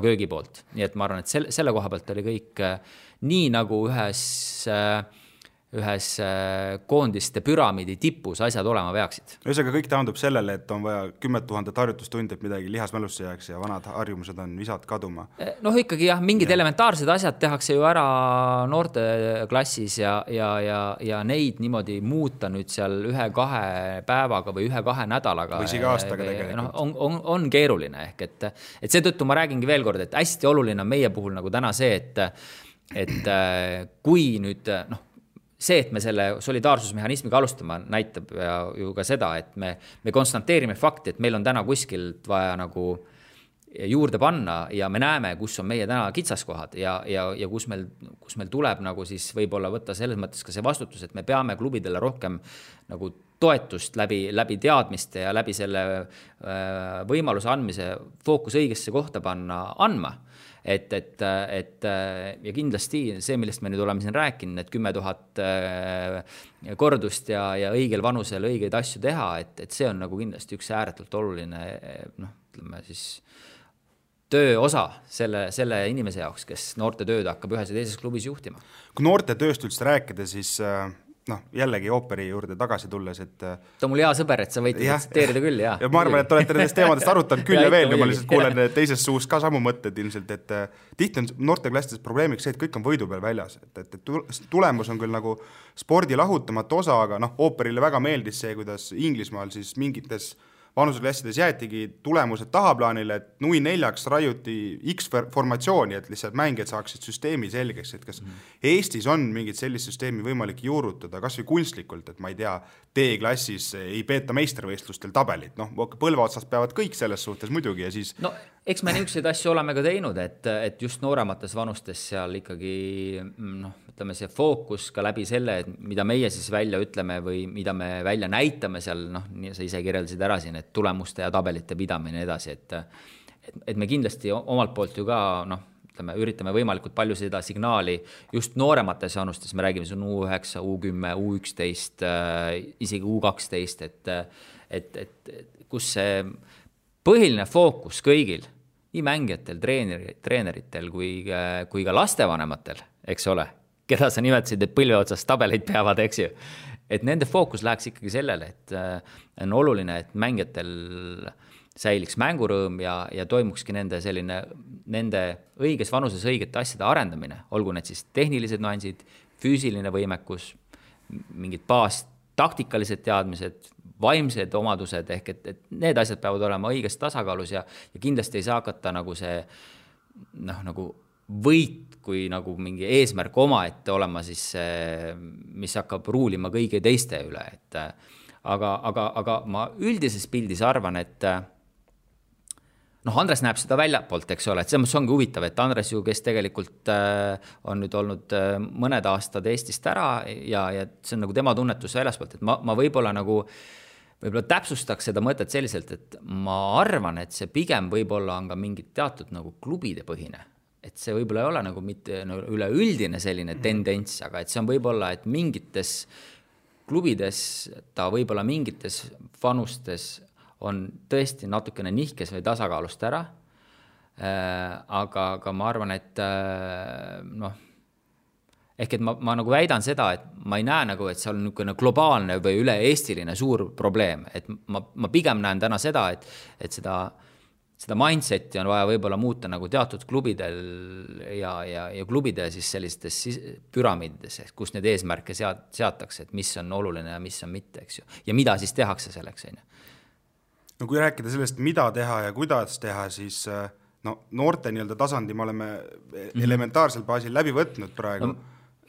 köögipoolt. Nii et ma arvan, et selle koha pealt oli kõik nii nagu ühes koondiste püramiidi tipus asjad olema peaksid. Ühesõnaga kõik taandub sellele, et on vaja 10 000 harjutustundi, et midagi lihasmälusse jääks ja vanad harjumused on visad kaduma. Ikkagi jah, mingid elementaarsed asjad tehakse ju ära noorte klassis ja neid niimoodi muuta nüüd seal 1-2 päevaga või 1-2 nädalaga. Või siga aastaga tegelikult. On keeruline ehk, et seetõttu ma räägingi veel kord, et hästi oluline on meie puhul nagu täna see, et kui nüüd see, et me selle solidaarsusmehhanismiga alustama näitab ju ka seda, et me konstanteerime fakti, et meil on täna kuskilt vaja nagu juurde panna ja me näeme, kus on meie täna kitsaskohad ja kus meil tuleb nagu siis võib-olla võtta selles mõttes ka see vastutus, et me peame klubidele rohkem nagu toetust läbi teadmiste ja läbi selle võimaluse andmise fookus õigesse kohta andma. Et ja kindlasti see, millest me nüüd oleme siin rääkinud, et 10 000 kordust ja õigel vanusel õigeid asju teha, et see on nagu kindlasti üks ääretult oluline ütleme siis töö osa selle inimese jaoks, kes noorte tööd hakkab ühes ja teises klubis juhtima. Kui noorte tööst üldse rääkida, siis jällegi ooperi juurde tagasi tulles, et ta on mul hea sõber, et sa võid tsiteerida küll, jah. Ja ma arvan, et olete nendest teemadest arutanud küll ja veel, ma lihtsalt kuulen teises suus ka samu mõtted ilmselt, et tihti on noorteklassides probleemiks see, et kõik on võidu peal väljas, et tulemus on küll nagu spordi lahutamatu osa, aga ooperile väga meeldis see, kuidas Inglismaal siis mingites vanuseklassides jäetigi tulemused tahaplaanile, et 0-4 raiuti X-formatsiooni, et lihtsalt mängijad saaksid süsteemi selgeks, et kas Eestis on mingit sellist süsteemi võimalik juurutada, kas või kunstlikult, et ma ei tea, D-klassis ei peeta meistrivõistlustel tabelit, põlvaotsast peavad kõik selles suhtes muidugi ja siis eks me niisuguseid asju oleme ka teinud, et just nooremates vanustes seal ikkagi ütleme see fookus ka läbi selle, et mida meie siis välja ütleme või mida me välja näitame seal, sa ise kirjeldasid ära siin, et tulemuste ja tabelite pidamine edasi, et me kindlasti omalt poolt ju ka üritame võimalikult palju seda signaali just nooremates vanustes, me räägime siin U9, U10, U11, isegi U12, et kus see põhiline fookus kõigil, nii mängijatel, treeneritel kui ka lastevanematel, eks ole, keda sa nimetasid, et põlve otsas tabeleid peavad, eks ju, et nende fookus läheks ikkagi sellele, et on oluline, et mängijatel säiliks mängurõõm ja toimukski nende õiges vanuses õigete asjade arendamine, olgu need siis tehnilised nüansid, füüsiline võimekus, mingid taktikalised teadmised, vaimsed omadused, ehk et need asjad peavad olema õiges tasakaalus ja kindlasti ei saa hakata nagu see nagu võit kui nagu mingi eesmärk omaette olema siis mis hakkab ruulima kõigi teiste üle, et aga ma üldises pildis arvan, et Andres näeb seda väljapoolt, eks ole, et see ongi huvitav, et Andres ju, kes tegelikult on nüüd olnud mõned aastad Eestist ära ja see on nagu tema tunnetus väljaspoolt, et ma võib-olla täpsustaks seda mõtet selliselt, et ma arvan, et see pigem võib-olla on ka mingid teatud nagu klubide põhine, et see võib-olla ei ole nagu mitte üleüldine selline tendents, aga et see on võib-olla, et mingites klubides ta võib-olla mingites vanustes on tõesti natukene nihkes või tasakaalust ära, aga ma arvan, et ehk et ma nagu väidan seda, et ma ei näe nagu, et see on niisugune globaalne või üle-eestiline suur probleem, et ma pigem näen täna seda, et seda seda mindseti on vaja võib-olla muuta nagu teatud klubidel ja klubide siis sellistes püramiidides, kus need eesmärke seatakse, et mis on oluline ja mis on mitte, eks ju. Ja mida siis tehakse selleks, on ju? No kui rääkida sellest, mida teha ja kuidas teha, siis noorte tasandi me oleme elementaarsel baasil läbi võtnud praegu.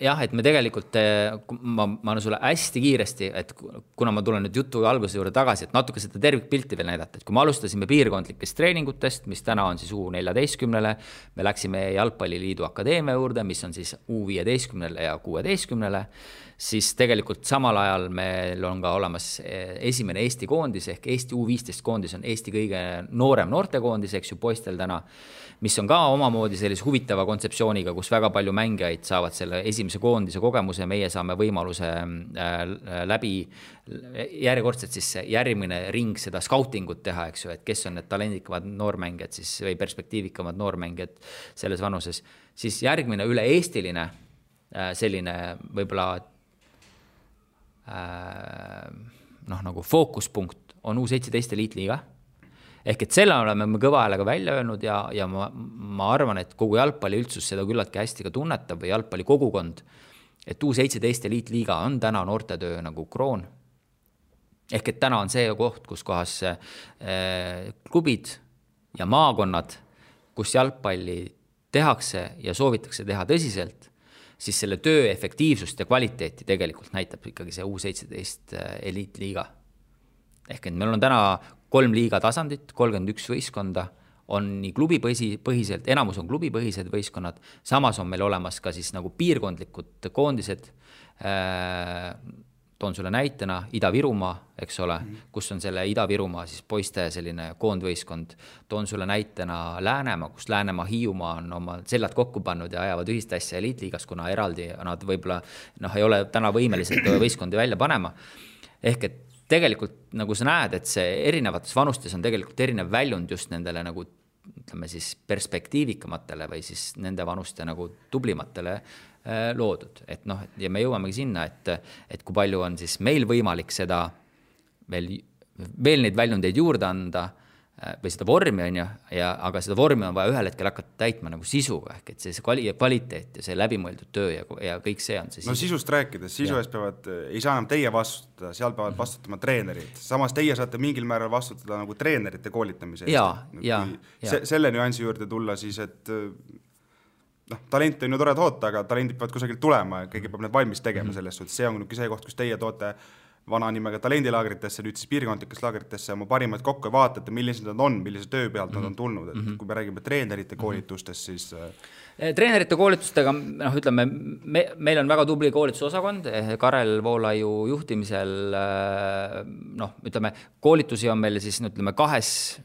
Jah, et me tegelikult, ma olen sulle hästi kiiresti, et kuna ma tulen nüüd jutu alguse juurde tagasi, et natuke seda tervikpilti veel näidata, et kui me alustasime piirkondlikest treeningutest, mis täna on siis U14-le, me läksime Jalgpalliliidu akadeemia juurde, mis on siis U15-le ja 16-le, siis tegelikult samal ajal meil on ka olemas esimene Eesti koondis ehk Eesti U15 koondis on Eesti kõige noorem noortekoondis, eks ju, poistel täna, mis on ka omamoodi sellise huvitava kontseptsiooniga, kus väga palju mängijaid saavad selle esimese koondise kogemuse, meie saame võimaluse läbi järjekordselt siis järgmine ring seda scoutingut teha, eks ju, et kes on need talendikamad noormängijad siis või perspektiivikamad noormängijad selles vanuses, siis järgmine üle-eestiline selline võib-olla nagu fookuspunkt on U17 eliitliiga. Ehk et selle oleme me kõva häälega välja öelnud ja ma arvan, et kogu jalgpalli üldsus seda küllaltki hästi ka tunnetab või jalgpalli kogukond, et U17 eliitliiga on täna noortetöö nagu kroon. Ehk et täna on see koht, kus kohas klubid ja maakonnad, kus jalgpalli tehakse ja soovitakse teha tõsiselt, siis selle töö efektiivsust ja kvaliteeti tegelikult näitab ikkagi see U17 eliitliiga. Ehk et meil on täna 3 liiga tasandit, 31 võistkonda, on nii klubipõhiselt, enamus on klubipõhised võistkonnad, samas on meil olemas ka siis nagu piirkondlikud koondised, toon sulle näitena Ida-Virumaa, eks ole, kus on selle Ida-Virumaa siis poiste selline koondvõistkond, toon sulle näitena Läänemaa, kus Läänemaa Hiiumaa on oma sellad kokku pannud ja ajavad ühist asja eliitliigas, kuna eraldi nad võib-olla ei ole täna võimelised võistkondi välja panema. Ehk et tegelikult nagu sa näed, et see erinevates vanustes on tegelikult erinev väljund just nendele nagu ütleme siis perspektiivikamatele või siis nende vanuste nagu tublimatele loodud. Et ja me jõuamegi sinna, et kui palju on siis meil võimalik seda veel neid väljundeid juurde anda või seda vormi on ju, aga seda vormi on vaja ühel hetkel hakata täitma nagu sisuga, ehk et see kvaliteet ja see läbimõeldud töö ja kõik see on see sisu. Sisust rääkides, sisu eest ei saa enam teie vastutada, seal peavad vastutama treenerid. Samas teie saate mingil määral vastutada nagu treenerite koolitamise eest. Selle nüansi juurde tulla siis, et talent on ju tore toota, aga talendid peavad kusagilt tulema ja keegi peab need valmis tegema selles suhtes. See on see koht, kus teie toote vana nimega talendilaagritesse, nüüd siis piirkondlikesse laagritesse oma parimad kokku ja vaatate, millised nad on, millise töö pealt nad on tulnud. Et kui me räägime treenerite koolitustest, siis treenerite koolitustega, ütleme, meil on väga tubli koolitusosakond, Karel Voolaiu juhtimisel, ütleme, koolitusi on meil siis, ütleme, kahes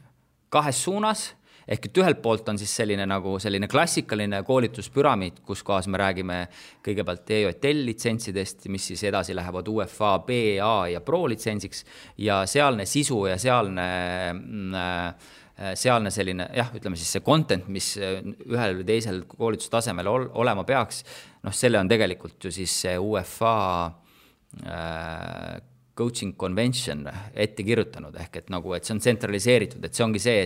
suunas, ehk et ühelt poolt on siis selline klassikaline koolituspüramiid, kus kohas me räägime kõigepealt EJL litsentsidest, mis siis edasi lähevad UEFA, B, A ja Pro litsentsiks ja sealne sisu ja sealne selline, ütleme siis see content, mis ühel või teisel koolitustasemel olema peaks, selle on tegelikult ju siis see UEFA coaching convention ette kirjutanud, ehk et see on tsentraliseeritud, et see ongi see,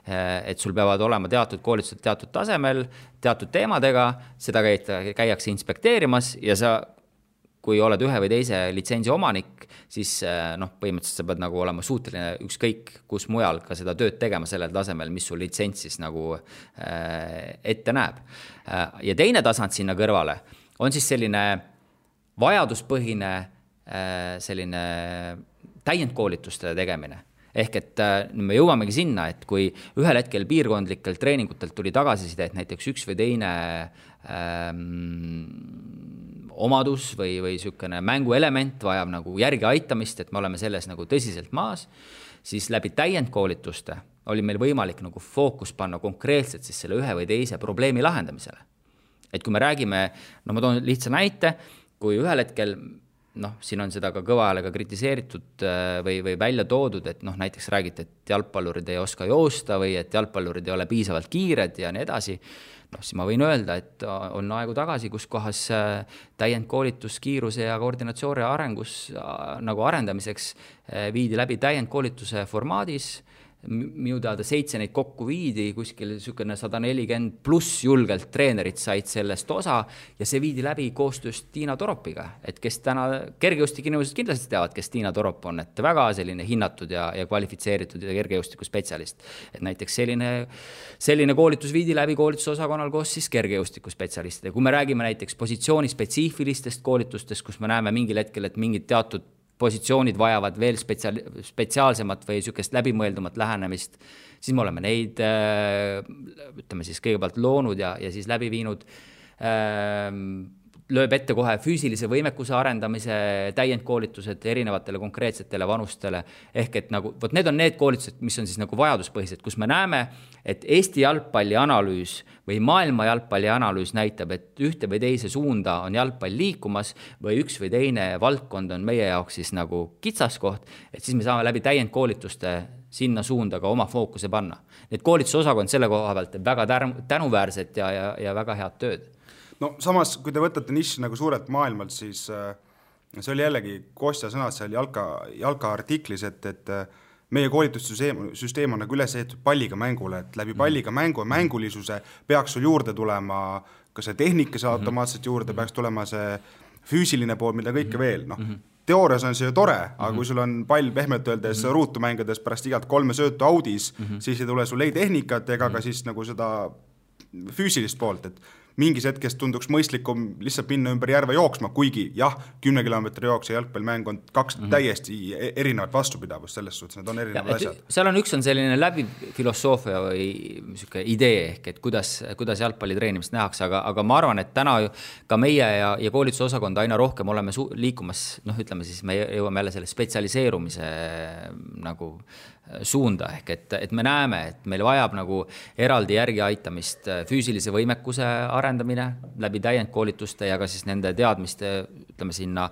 et sul peavad olema teatud koolitused teatud tasemel, teatud teemadega, seda käiakse inspekteerimas ja sa, kui oled ühe või teise litsentsi omanik, siis põhimõtteliselt sa pead nagu olema suuteline ükskõik kus mujal ka seda tööd tegema sellel tasemel, mis sul litsents siis nagu ette näeb. Ja teine tasand sinna kõrvale on siis selline vajaduspõhine selline täiendkoolituste tegemine. Ehk et me jõuamegi sinna, et kui ühel hetkel piirkondlikel treeningutelt tuli tagasiside, et näiteks üks või teine omadus või sükene mänguelement vajab nagu järgi aitamist, et me oleme selles nagu tõsiselt maas, siis läbi täiendkoolituste oli meil võimalik nagu fookus panna konkreetselt siis selle ühe või teise probleemi lahendamisele. Et kui me räägime, ma toon lihtsa näite, kui ühel hetkel siin on seda ka kõva häälega kritiseeritud või välja toodud, et näiteks räägite, et jalgpallurid ei oska joosta või et jalgpallurid ei ole piisavalt kiired ja nii edasi, siis ma võin öelda, et on aegu tagasi, kus kohas täiendkoolitus kiiruse ja koordinatsiooni arengus nagu arendamiseks viidi läbi täiendkoolituse formaadis, minu teada 7 neid kokku viidi, kuskil niisugune 140 pluss julgelt treenerid said sellest osa ja see viidi läbi koostöös Tiina Toropiga, et kes täna kergejõustiku inimesed kindlasti teavad, kes Tiina Torop on, et väga selline hinnatud ja kvalifitseeritud ja kergejõustiku spetsialist. Et näiteks selline koolitus viidi läbi koolitusosakonnal koos siis kergejõustiku spetsialistide. Kui me räägime näiteks positsiooni spetsiifilistest koolitustest, kus me näeme mingil hetkel, et mingid teatud positsioonid vajavad veel spetsiaalsemat või niisugust läbimõeldumat lähenemist, siis me oleme neid, ütleme siis kõigepealt loonud ja siis läbi viinud, lööb ette kohe füüsilise võimekuse arendamise täiendkoolitused erinevatele konkreetsetele vanustele. Ehk et nagu, need on need koolitused, mis on siis nagu vajaduspõhised, kus me näeme, et Eesti jalgpalli analüüs või maailma jalgpalli analüüs näitab, et ühte või teise suunda on jalgpall liikumas või üks või teine valdkond on meie jaoks siis nagu kitsaskoht, et siis me saame läbi täiendkoolituste sinna suunda ka oma fookuse panna. Need koolitusosakond selle koha pealt väga tänuväärset ja väga head tööd. No samas, kui te võtate niši nagu suurelt maailmalt, siis see oli jällegi Kostja sõnad seal jalka artiklis, et meie koolitussüsteem on nagu üles ehtud palliga mängule, et läbi palliga mängu ja mängulisuse peaks sul juurde tulema ka see tehnika automaatselt juurde, peaks tulema see füüsiline pool, mida kõike veel. Teoorias on see ju tore, aga kui sul on pall pehmelt öeldes ruutu mängides pärast igalt 3 söötu audis, siis ei tule sul ei tehnikat ega ka siis nagu seda füüsilist poolt, et mingis hetkest tunduks mõistlikum lihtsalt minna ümber järve jooksma, kuigi jah, 10 kilomeetri jooks ja jalgpallimäng on 2 täiesti erinevat vastupidavust selles suhtes, need on erinevad asjad. Seal on üks on selline läbi filosoofia või idee ehk, et kuidas jalgpalli treenimist nähakse, aga ma arvan, et täna ka meie ja koolitusosakond aina rohkem oleme liikumas, ütleme siis, me jõuame jälle selle spetsialiseerumise nagu suunda ehk, et me näeme, et meil vajab nagu eraldi järgi aitamist füüsilise võimekuse arendamine läbi täiendkoolituste ja ka siis nende teadmiste, ütleme sinna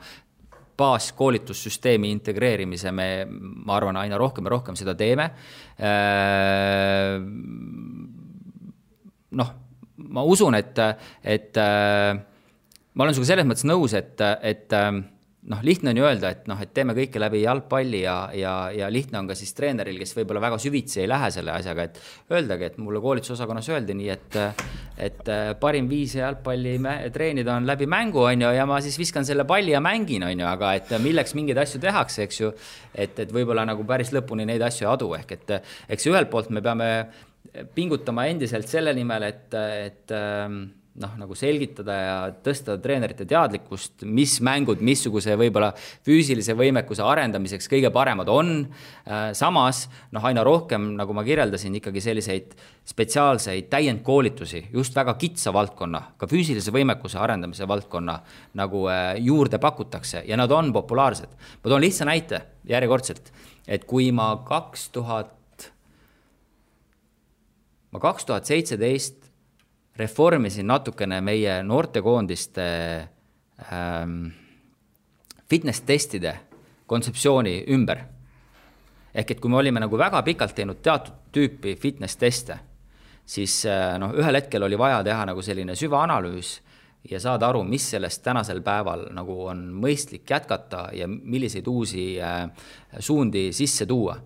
baaskoolitussüsteemi integreerimise ma arvan, aina rohkem ja rohkem seda teeme. Ma usun, et ma olen sinuga selles mõttes nõus, et lihtne on ju öelda, et teeme kõike läbi jalgpalli ja lihtne on ka siis treeneril, kes võib-olla väga süvitsi ei lähe selle asjaga, et öeldagi, et mulle koolitusosakonnas öeldi nii, et parim viis jalgpalli treenida on läbi mängu, ja ma siis viskan selle palli ja mängin, aga et milleks mingeid asju tehakse, eks ju, et võib-olla nagu päris lõpuni neid asju adu, ehk et eks ühelt poolt me peame pingutama endiselt selle nimel, et nagu selgitada ja tõsta treenerite teadlikkust, mis mängud, missuguse võib-olla füüsilise võimekuse arendamiseks kõige paremad on. Samas, aina rohkem, nagu ma kirjeldasin, ikkagi selliseid spetsiaalseid täiendkoolitusi, just väga kitsa valdkonna, ka füüsilise võimekuse arendamise valdkonna nagu juurde pakutakse ja nad on populaarsed. Ma toon lihtsa näite järjekordselt, et kui ma 2017 reformisin natukene meie noortekoondiste fitness-testide kontseptsiooni ümber. Ehk et kui me olime nagu väga pikalt teinud teatud tüüpi fitness-teste, siis ühel hetkel oli vaja teha nagu selline süvaanalüüs ja saada aru, mis sellest tänasel päeval nagu on mõistlik jätkata ja milliseid uusi suundi sisse tuua.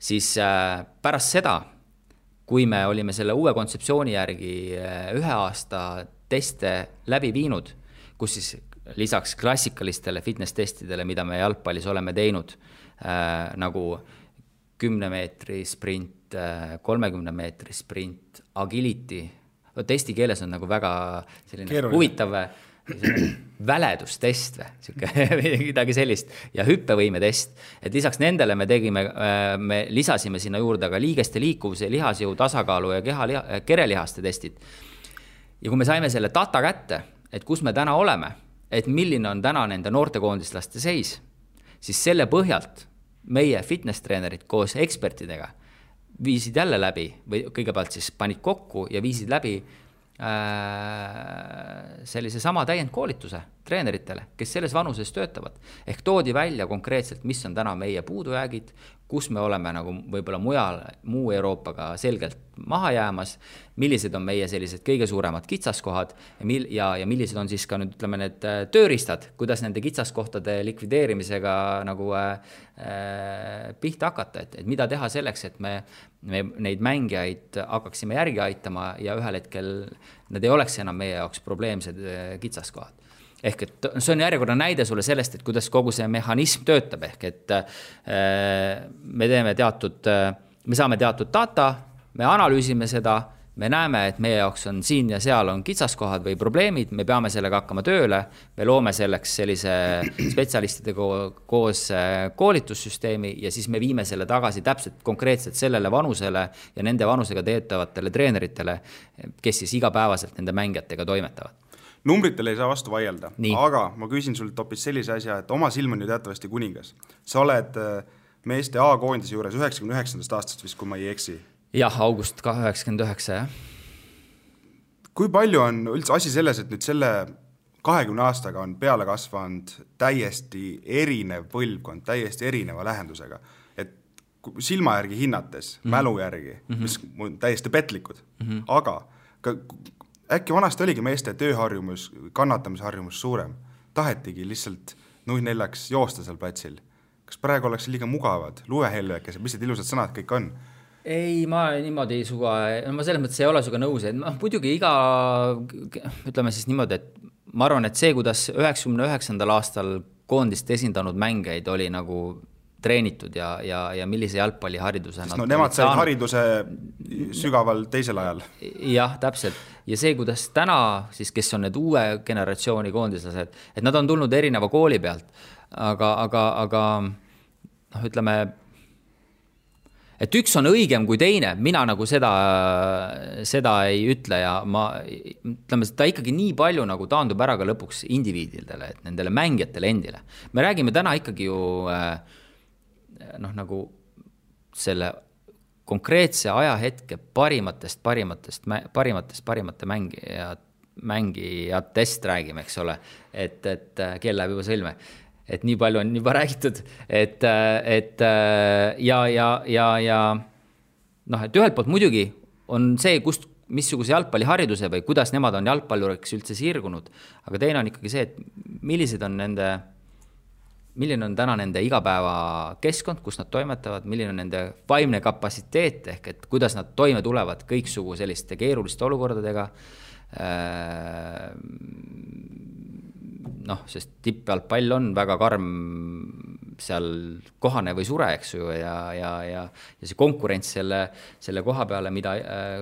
Siis pärast seda, kui me olime selle uue kontseptsiooni järgi 1 aasta teste läbi viinud, kus siis lisaks klassikalistele fitness-testidele, mida me jalgpallis oleme teinud, nagu 10 meetri sprint, 30 meetri sprint, agility, testi keeles on nagu väga selline huvitav väledustest või midagi sellist ja hüppevõimetest, et lisaks nendele me lisasime sinna juurde ka liigeste liikuvuse, lihasjõu, tasakaalu ja kerelihaste testid. Ja kui me saime selle data kätte, et kus me täna oleme, et milline on täna nende noortekoondislaste seis, siis selle põhjalt meie fitness-treenerid koos ekspertidega viisid jälle läbi või kõigepealt siis panid kokku ja viisid läbi sellise sama täiendkoolituse treeneritele, kes selles vanuses töötavad. Ehk toodi välja konkreetselt, mis on täna meie puudujäägid, kus me oleme nagu võib-olla muu Euroopaga selgelt maha jäämas, millised on meie sellised kõige suuremad kitsaskohad ja millised on siis ka nüüd ütleme need tööriistad, kuidas nende kitsaskohtade likvideerimisega nagu pihta hakata, et mida teha selleks, et me neid mängijaid hakkaksime järgi aitama ja ühel hetkel need ei oleks enam meie jaoks probleemsed kitsaskohad. Ehk et see on järjekorda näide sulle sellest, et kuidas kogu see mehhanism töötab, ehk et me saame teatud data, me analüüsime seda, me näeme, et meie jaoks on siin ja seal on kitsaskohad või probleemid, me peame sellega hakkama tööle, me loome selleks sellise spetsialistidega koos koolitussüsteemi ja siis me viime selle tagasi täpselt konkreetselt sellele vanusele ja nende vanusega teetavatele treeneritele, kes siis igapäevaselt nende mängijatega toimetavad. Numbritele ei saa vastu vaielda, aga ma küsin sult hoopis sellise asja, et oma silm on ju teatavasti kuningas. Sa oled meeste A-koondise juures 99. aastast vist, kui ma ei eksi. Jah, august 99, jah. Kui palju on üldse asi selles, et nüüd selle 20 aastaga on peale kasvanud täiesti erinev põlvkond, täiesti erineva lähendusega? Et silma järgi hinnates, mälu järgi, mis on täiesti petlikud, aga äkki vanasti oligi meeste tööharjumus, kannatamisharjumus suurem. Tahetigi lihtsalt 0-4 joosta seal platsil. Kas praegu oleks liiga mugavad, luehelvekesed, mis need ilusad sõnad kõik on? Ei, ma niimoodi suga, ma selles mõttes ei ole suga nõus, et muidugi ütleme siis niimoodi, et ma arvan, et see, kuidas 99. aastal koondist esindanud mängeid oli nagu treenitud ja millise jalgpallihariduse nemad said hariduse sügaval teisel ajal. Jah, täpselt. Ja see, kuidas täna, siis, kes on need uue generatsiooni koondislased, et nad on tulnud erineva kooli pealt, aga ütleme, et üks on õigem kui teine, mina nagu seda ei ütle ja ütleme, ta ikkagi nii palju nagu taandub ära ka lõpuks indiviididele, et nendele mängijatele endile. Me räägime täna ikkagi ju nagu selle konkreetse ajahetke parimate mängijatest räägime, eks ole, et kell läheb juba sõlme, et nii palju on juba räägitud, et ühelt poolt muidugi on see, missuguse jalgpallihariduse või kuidas nemad on jalgpalluriks üldse sirgunud, aga teine on ikkagi see, et milline on täna nende igapäeva keskkond, kus nad toimetavad, milline on nende vaimne kapatsiteet, ehk et kuidas nad toime tulevad kõiksugu selliste keeruliste olukordadega, sest tippjalgpall on väga karm seal kohane või sure, eks ju, ja see konkurents selle koha peale,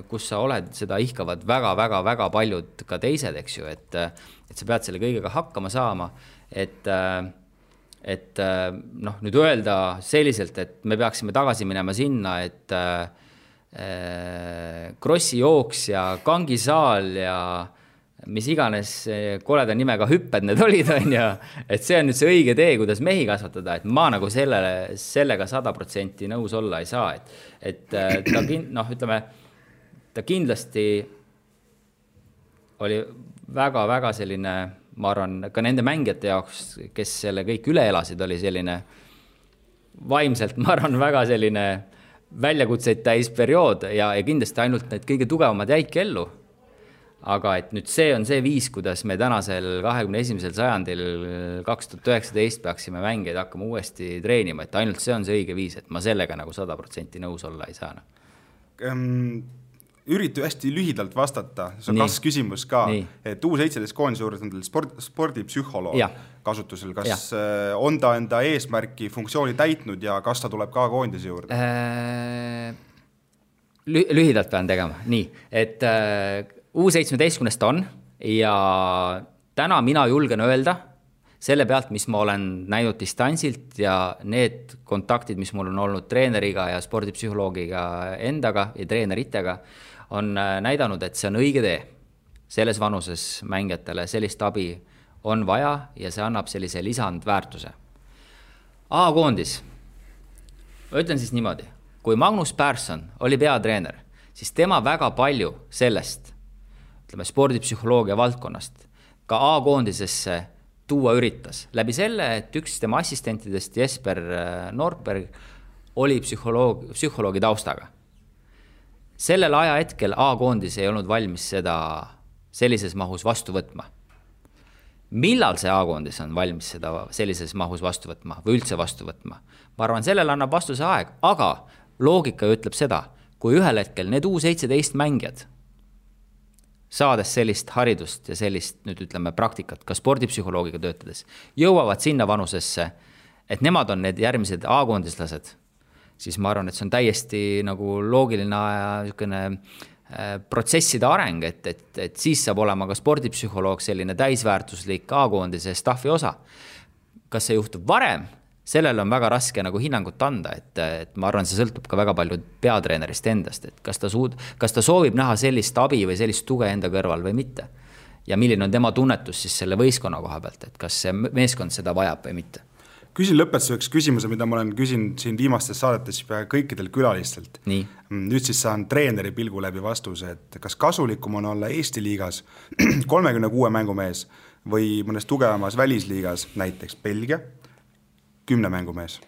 kus sa oled, seda ihkavad väga paljud ka teised, eks ju, et sa pead selle kõigega hakkama saama, et nüüd öelda selliselt, et me peaksime tagasi minema sinna, et krossijooks ja kangisaal ja mis iganes koleda nimega hüpped need olid, et see on nüüd see õige tee, kuidas mehi kasvatada, et ma nagu sellega 100% nõus olla ei saa, et ta kindlasti oli väga selline, ma arvan, ka nende mängijate jaoks, kes selle kõik üle elasid, oli selline vaimselt, ma arvan, väga selline väljakutseid täis periood ja kindlasti ainult need kõige tugevamad jäidki ellu. Aga et nüüd see on see viis, kuidas me tänasel 21. sajandil 2019 peaksime mängijaid hakkama uuesti treenima, et ainult see on see õige viis, et ma sellega nagu 100% nõus olla ei saa. Üritu hästi lühidalt vastata, see on kas küsimus ka, et U17 koondise juures on teil spordipsühholoog kasutusel, kas on ta enda eesmärki funktsiooni täitnud ja kas ta tuleb ka koondise juurde? Lühidalt pean tegema, nii, et U17 on ja täna mina julgen öelda selle pealt, mis ma olen näinud distantsilt ja need kontaktid, mis mul on olnud treeneriga ja spordipsühholoogiga endaga ja treeneritega, on näidanud, et see on õige tee. Selles vanuses mängijatele sellist abi on vaja ja see annab sellise lisandväärtuse. A-koondis. Ma ütlen siis niimoodi. Kui Magnus Persson oli peatreener, siis tema väga palju sellest, ütleme, spordipsühholoogia valdkonnast ka A-koondisesse tuua üritas. Läbi selle, et üks tema assistentidest, Jesper Nordberg, oli psühholoogi taustaga. sellel ajahetkel A-koondis ei olnud valmis seda sellises mahus vastu võtma. Millal see A-koondis on valmis seda sellises mahus vastu võtma või üldse vastu võtma? Ma arvan, sellel annab vastuse aeg, aga loogika ütleb seda, kui ühel hetkel need U17 mängijad, saades sellist haridust ja sellist, nüüd ütleme, praktikat, ka spordipsühholoogiga töötades, jõuavad sinna vanusesse, et nemad on need järgmised A-koondislased, siis ma arvan, et see on täiesti nagu loogiline protsesside areng, et siis saab olema ka spordipsühholoog selline täisväärtuslik A-koondise staffi osa. Kas see juhtub varem? Sellel on väga raske nagu hinnangut anda, et ma arvan, see sõltub ka väga palju peatreenerist endast, et kas ta soovib näha sellist abi või sellist tuge enda kõrval või mitte. Ja milline on tema tunnetus siis selle võistkonna koha pealt, et kas see meeskond seda vajab või mitte. Küsin lõpetuseks küsimuse, mida ma olen küsinud siin viimastes saadetes kõikidel külalistelt. Nii. Nüüd siis saan treeneri pilgu läbi vastuse, et kas kasulikum on olla Eesti liigas 36 mängumees või mõnes tugevamas välisliigas, näiteks Belgia, 10 mängumees?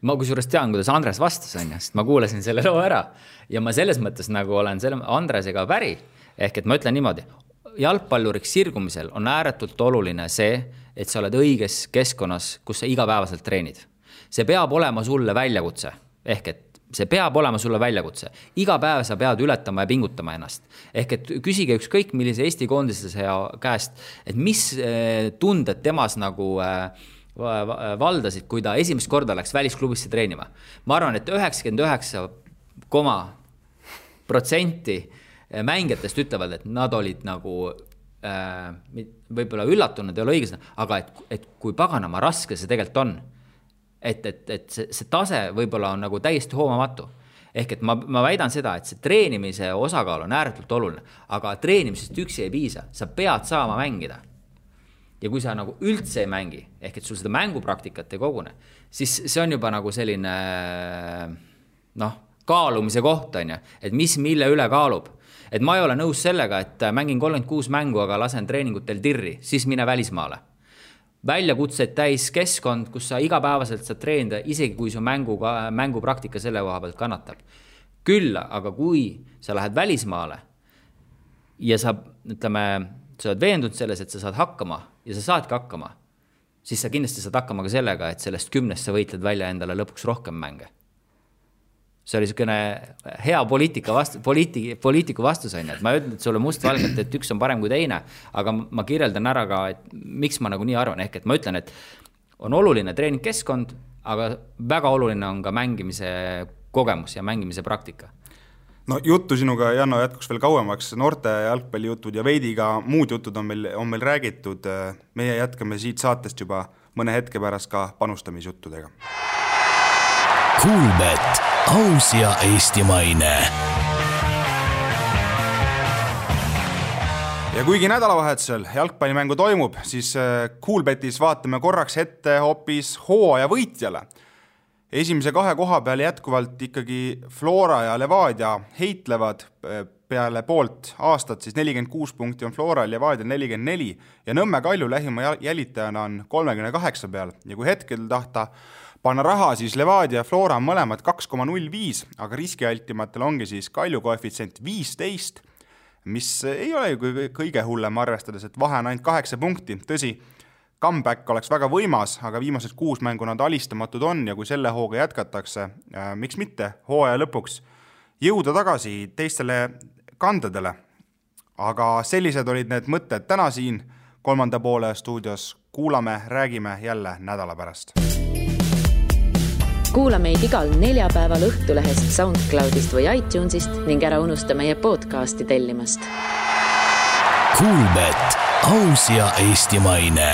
Ma kusjuures tean, kuidas Andres vastas, sest ma kuulasin selle loo ära ja ma selles mõttes nagu olen Andresega päri, ehk et ma ütlen niimoodi, jalgpalluriks sirgumisel on ääretult oluline see, et sa oled õiges keskkonnas, kus sa igapäevaselt treenid. See peab olema sulle väljakutse, ehk et see peab olema sulle väljakutse. Iga päev sa pead ületama ja pingutama ennast. Ehk et küsige ükskõik millise Eesti koondislase käest, et mis tunded temas nagu valdasid, kui ta esimest korda läks välisklubisse treenima. Ma arvan, et 99,% mängijatest ütlevad, et nad olid nagu võib-olla üllatunud, ei ole õiges, aga et kui paganama raske see tegelikult on, et see tase võib-olla on nagu täiesti hoomamatu. Ehk et ma väidan seda, et see treenimise osakaal on ääretult oluline, aga treenimisest üksi ei piisa, sa pead saama mängida. Ja kui sa nagu üldse ei mängi, ehk et sul seda mängupraktikat ei kogune, siis see on juba nagu selline kaalumise koht, et mis mille üle kaalub. Et ma ei ole nõus sellega, et mängin 36 mängu, aga lasen treeningutel tirri, siis mine välismaale. Väljakutseid täis keskkond, kus sa igapäevaselt saad treenida, isegi kui su mängupraktika selle koha pealt kannatab. Küll, aga kui sa lähed välismaale ja sa oled veendunud selles, et sa saad hakkama ja sa saadki hakkama, siis sa kindlasti saad hakkama ka sellega, et sellest 10 sa võitled välja endale lõpuks rohkem mänge. See oli selline hea poliitiku vastus, et ma ütlen, et sulle mustvalgelt, et üks on parem kui teine, aga ma kirjeldan ära ka, et miks ma nagu nii arvan, ehk et ma ütlen, et on oluline treeningkeskkond, aga väga oluline on ka mängimise kogemus ja mängimise praktika. No juttu sinuga, Janno, jätkuks veel kauemaks, noorte jalgpallijutud ja veidi ka muud jutud on meil räägitud. Meie jätkame siit saatest juba mõne hetke pärast ka panustamisjuttudega. Kuulbet, aus ja eestimaine. Ja kuigi nädalavahetusel jalgpallimängu toimub, siis Kuulbetis vaatame korraks ette hoopis hooaja võitjale. Esimese 2 koha peal jätkuvalt ikkagi Flora ja Levadia heitlevad peale poolt aastat, siis 46 punkti on Flora ja Levadia 44 ja Nõmme Kalju lähima jälitajana on 38 peal ja kui hetkel tahta panna raha, siis Levadia ja Flora on mõlemad 2,05, aga riskialtimatel ongi siis Kalju koefitsient 15, mis ei ole kõige hullem arvestades, et vahe on ainult 8 punkti. Tõsi, comeback oleks väga võimas, aga viimased 6 mängu nad alistamatud on ja kui selle hooga jätkatakse, miks mitte hooaja lõpuks jõuda tagasi teistele kandedele. Aga sellised olid need mõtted täna siin 3. poole stuudios. Kuulame, räägime jälle nädala pärast. Kuula meid igal neljapäeval Õhtulehest, SoundCloudist või iTunesist ning ära unusta meie podcasti tellimast. Kuulbet, aus ja eestimaine.